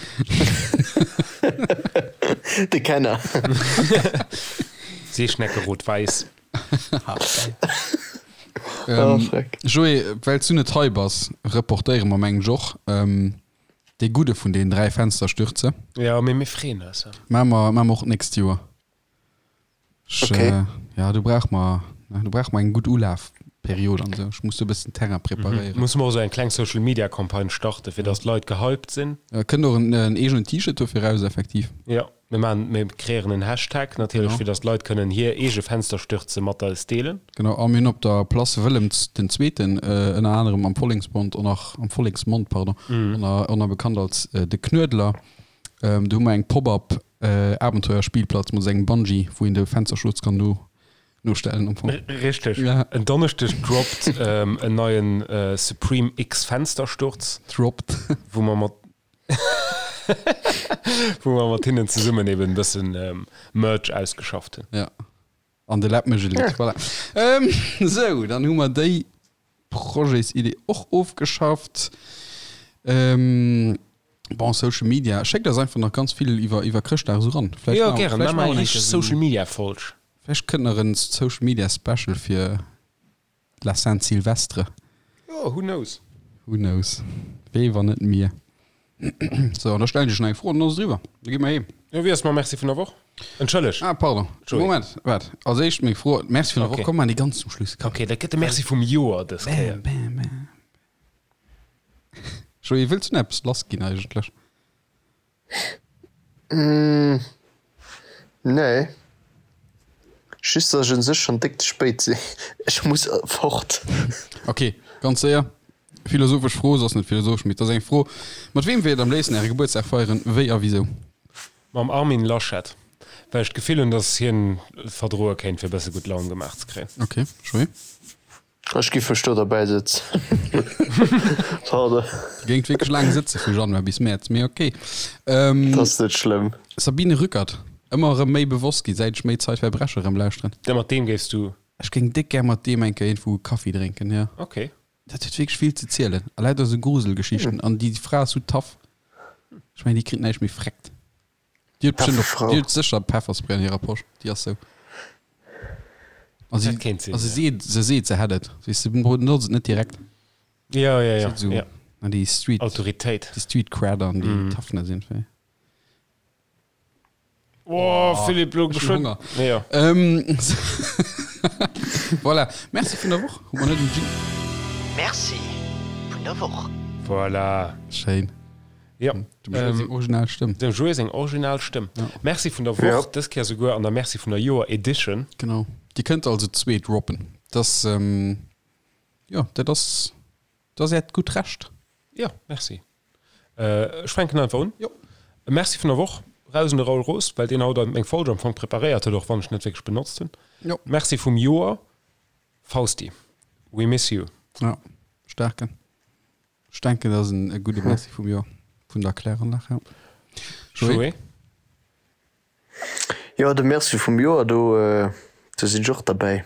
De Kenner. Seeschnecke rot-wäiss. Oh, freck. Joé, well s du net hei bass, reportéiere mer mengen ech och dee gudde vun deenen 3 Fensterstürze. Jo, mee mir freeën eis. Maache mer, maache mer och d'nächst Joer. Ech, Okay. äh, ja, do brauch mer, ne, do brauch mer eng gutt Ulafperiod an esou. Ech muss do e bëssen Terrain preparéieren. Musse mer och esou eng kleng Social Media Campagne starten, fir dass d'Leit gehypt sinn. Äh, kënnt och en, en eegenen T-Shirt dofir raus, effektiv. Jo, mir maachen, mir kreéieren en Hashtag natierlech, Genau. fir dass d'Leit kënnen hir eege Fensterstürze mat eis deelen. Genau, a mir hunn op der Place Wëllem den Zweeten, äh, ënner anerem am Volleksmond och nach, am Volleksmond, pardon, ënner, ënner bekannt als äh, de Knuedler. Ähm, do hu mer eng Pop-up äh, Abenteuerspielplatz mat engem Bungee, wou een de Fensterschutz kann no, nostellen am Fong. Richteg. Ja. En Donneschdeg droppt ähm, en neien äh, Supreme X Fenstersturz, Droppt. wou mer mat wou mer mat hinnen zesummen eben e bëssen ähm, Merch ausgeschafft hunn. Ja. An de Läpp mécht e Lidd. Voilà. Ähm, sou, dann hu mer déi Projetsidee och ofgeschafft. Ähm, bon, Social Media. Schéckt eis einfach nach ganz vill iwwer, iwwer Chrëschtdag esou ran. Vläicht Jo, maache- gären. vläicht Maache mer maache eng mer richteg eng Kéier esou- Social Media Folg. Vläicht kënnt nach en Social Media Special fir La Saint Sylvestre. Jo, who knows? Who knows? Wee wann net mir? Sou, an da stellen ech dech nach eng Fro an dann ass et eriwwer. Da gi mer heem. Jo, wéi ass mam Merci vun der Woch? Entschëlleg. Ah, pardon. Joé. Moment, waart. Als éischt meng Fro. Merci vun der Woch. Okay. Komm, maachen déi ganz zum Schluss. Komm. Okay, dat gëtt de Merci vum Joer dës Kéier. Bam, bam, bam. Joé, wëlls du nach eppes lassginn eigentlech? Nee. Just dass ech un sech schon déck ze spéit sinn. Ech muss fort. Ok, ganz séier. Philosophesch Fro, se ass net philosophesch, mee et ass eng Fro. Mat weem wéilt am léifsten äre Gebuertsdag feieren, wéi a wisou? Mam Armin Laschet, well ech d'Gefill hunn, dass hien et verdroe kéint, fir e bësse gutt Laun gemaach ze kréien. Ok, Joé? Ech giff mech do derbäi sëtzen. Pardon. Dir géingt wierklech laang sëtze vu Januar bis Mäerz, mee ok. Dat ass net schlëmm. Sabine Rückert, Ëmmer erëm méi bewosst gi säit ech méi Zeitverbrecher erëm lauschteren. Ja, mat deem géifs du. Ech géing déck gär mat deem eng Kéier iergendwou e Kaffi drénken, jo. Ok. Dat huet wierklech vill ze zielen. A lauter esou Gruselgeschichten. An déi Fra ass sou tough. Ech mengen, déi kritt näischt méi freckt. Déi huet bestimmt och, déi huet sécher Pefferspray an hirer Posch. Déi ass sou. A si, Dat kéint sinn, a se ja. seet, se seet, se hätt et. Weess de, benotzt et net direkt. Ja, ja, ja. Se huet sou, ja. na, déi Street, Autoritéit. déi Street Cred an déi Toughness irgendwie. Oh, Philippe, lo Ech hunn geschwënn. Honger. Ja. Ähm, voilà. Merci vun der Woch. Hu mer net en Jingle? Merci vun der Woch. Voilà. Schéin. Ja. Dem Joé seng original Stëmm. Dem Joé seng original Stëmm. Merci vun der Woch, dës Kéier souguer an der Merci vun der Joer Edition. Genau. Dir kënnt also zwee droppen. Dass, jo, dat ass, dat ass äert gutt Recht. Jo, merci. Ech fänken einfach un. Jo. E Merci vun der Woch raus un de Raoul Roos, well deen haut meng Folge am Fong preparéiert huet, och wann ech net wierklech benotzt hunn. Jo. Merci vum Joer, Fausti. We miss you. Ja, staarken. Ech denken, dat ass en e gudde Merci vum Joer, vun der Kläranlag, ja. Joé? Joé? Jo, de Merci vum Joer, do, do sinn ech och derbäi.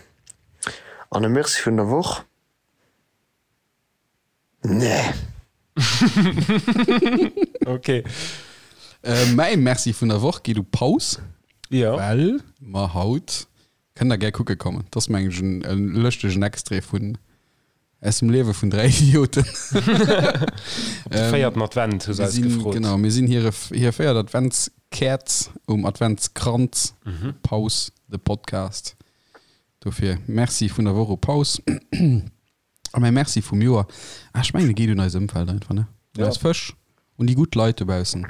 An e Merci vun der Woch? Nee. Ok. Mäi Merci vun der Woch geet u Paus, Jo. well mer haut, kënnt der gär kucke kommen, dat ass mengen ech en e lëschtegen Extrait vun Aus dem Liewe vun 3 Idioten. Op de véierten Advent hu se eis gefrot. Genau, mir sinn hire, hir véiert Adventskäerz um Adventskranz. Paus, de Podcast. Dofir Merci vun der Woch u Paus. A mäi Merci vum Joer, ah, ech mengen, e geet un eis Ëmwelt einfach, ne? Un eis Fësch, un déi gutt Leit dobaussen.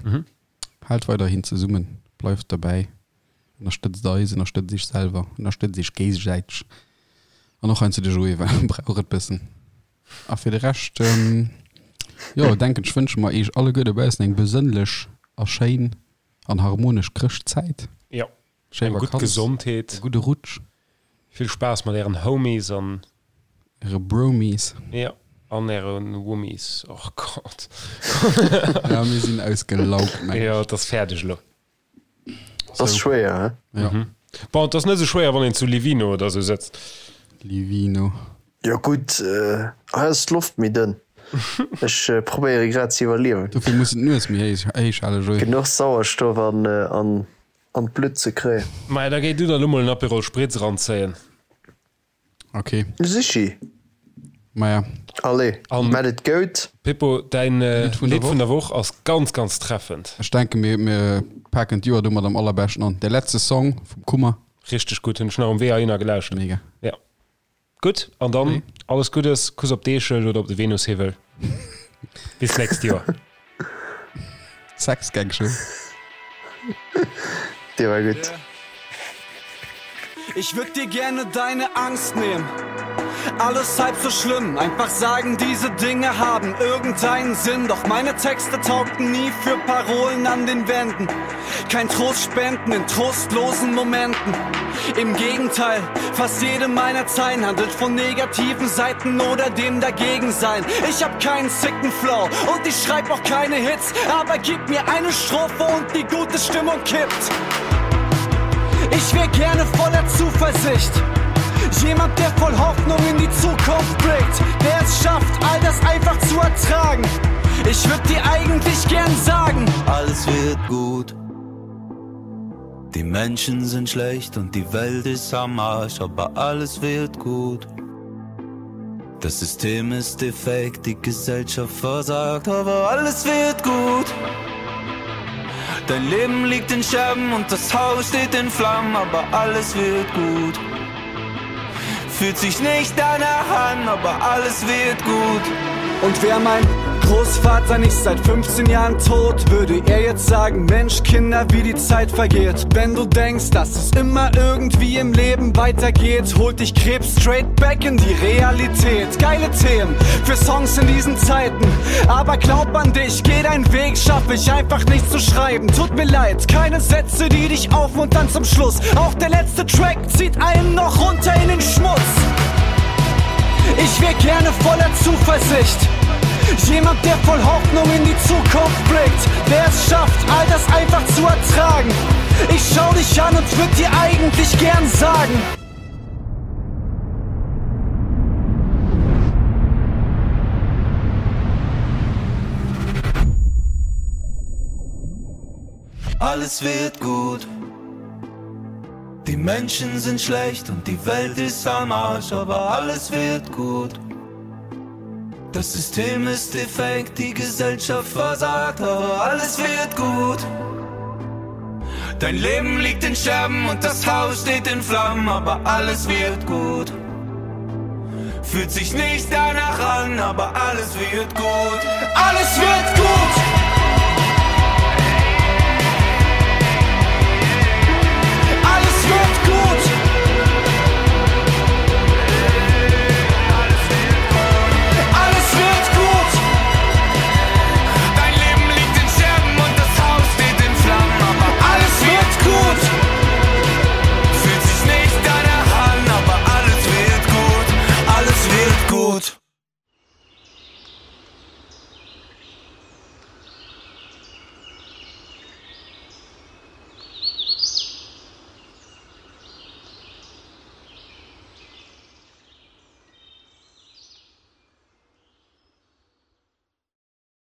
Haalt weiderhin zesummen, bleift derbäi. Ënnerstëtzt eis, ënnerstëtzt iech selwer, ënnerstëtzt iech géigesäiteg an och heiansdo de Joé, well e brauch et bëssen. A fir de Rescht. Jo, denken ech wënsche mer eech alleguer dobaussen eng besënnlech a schéin an harmonesch Chrëschtzäit. Jo, Schéi eng gutt Vakanz, Gesondheet, e gudde Rutsch. Vill Spaass mat ären Homies an. Äre Bromies. Jo, an äre Wommies. Och Gott. Ja, mir sinn ausgelaugt, meng ech. Jo, et ass fäerdeg elo. Et ass schwéier, he? Ja. Bon, et ass net esou schwéier, wann een zu Livino oder esou sëtzt. Livino. Jo gutt, hei ass d'Loft méi dënn. Ech probéiere grad ze iwwerliewen. Dofir muss en d'Nues méi héich halen, Joé. Genuch Sauerstoff an an d'Blutt ze kréien. Maja, da géi du der elo mol en Aperol Spritz eranzéien. Ok. Sichi. Maja. Allez, mat et goud. Pippo, däin Lidd vun der Woch ass ganz, ganz treffend. Ech denken, mir, mir paken d'Joer domat am allerbeschten an. Der letzte Song vum Kummer. Richteg gutt, hunn ech nach um Wee heihinner gelauschtert. Mega. Ja. Gutt, an dann alles Guddes, Kuss op d'Eechel oder op de Venushiwwel. Bis d'nächst Joer. Sex Gang Show. Dee war gutt. Ich würd dir gerne deine Angst nehmen. Alles halb so schlimm, einfach sagen, diese Dinge haben irgendeinen Sinn. Doch meine Texte taugten nie für Parolen an den Wänden. Kein Trost spenden in trostlosen Momenten. Im Gegenteil, fast jede meiner Zeilen handelt von negativen Seiten oder dem Dagegensein. Ich hab keinen sicken Flow und ich schreib auch keine Hits, aber gib mir eine Strophe und die gute Stimmung kippt. Ich wär gerne voller Zuversicht. Jemand, der voll Hoffnung in die Zukunft blickt, der es schafft, all das einfach zu ertragen. Ich würd dir eigentlich gern sagen: Alles wird gut. Die Menschen sind schlecht und die Welt ist am Arsch, aber alles wird gut. Das System ist defekt, die Gesellschaft versagt, aber alles wird gut. Dein Leben liegt in Scherben und das Haus steht in Flammen, aber alles wird gut. Fühlt sich nicht danach an, aber alles wird gut. Und wer mein Großvater nicht seit 15 Jahren tot, würde er jetzt sagen: Mensch, Kinder, wie die Zeit vergeht. Wenn du denkst, dass es immer irgendwie im Leben weitergeht, holt dich Krebs straight back in die Realität. Geile Themen für Songs in diesen Zeiten. Aber glaub an dich, geh deinen Weg, schaff ich einfach nicht zu schreiben. Tut mir leid, keine Sätze, die dich aufmuntern zum Schluss. Auch der letzte Track zieht einen noch runter in den Schmutz. Ich wär gerne voller Zuversicht. Jemand, der voll Hoffnung in die Zukunft blickt, der es schafft, all das einfach zu ertragen. Ich schau dich an und würd dir eigentlich gern sagen. Alles wird gut. Die Menschen sind schlecht und die Welt ist am Arsch, aber alles wird gut. Das System ist defekt, die Gesellschaft versagt, aber alles wird gut. Dein Leben liegt in Scherben und das Haus steht in Flammen, aber alles wird gut. Fühlt sich nicht danach an, aber alles wird gut. Alles wird gut!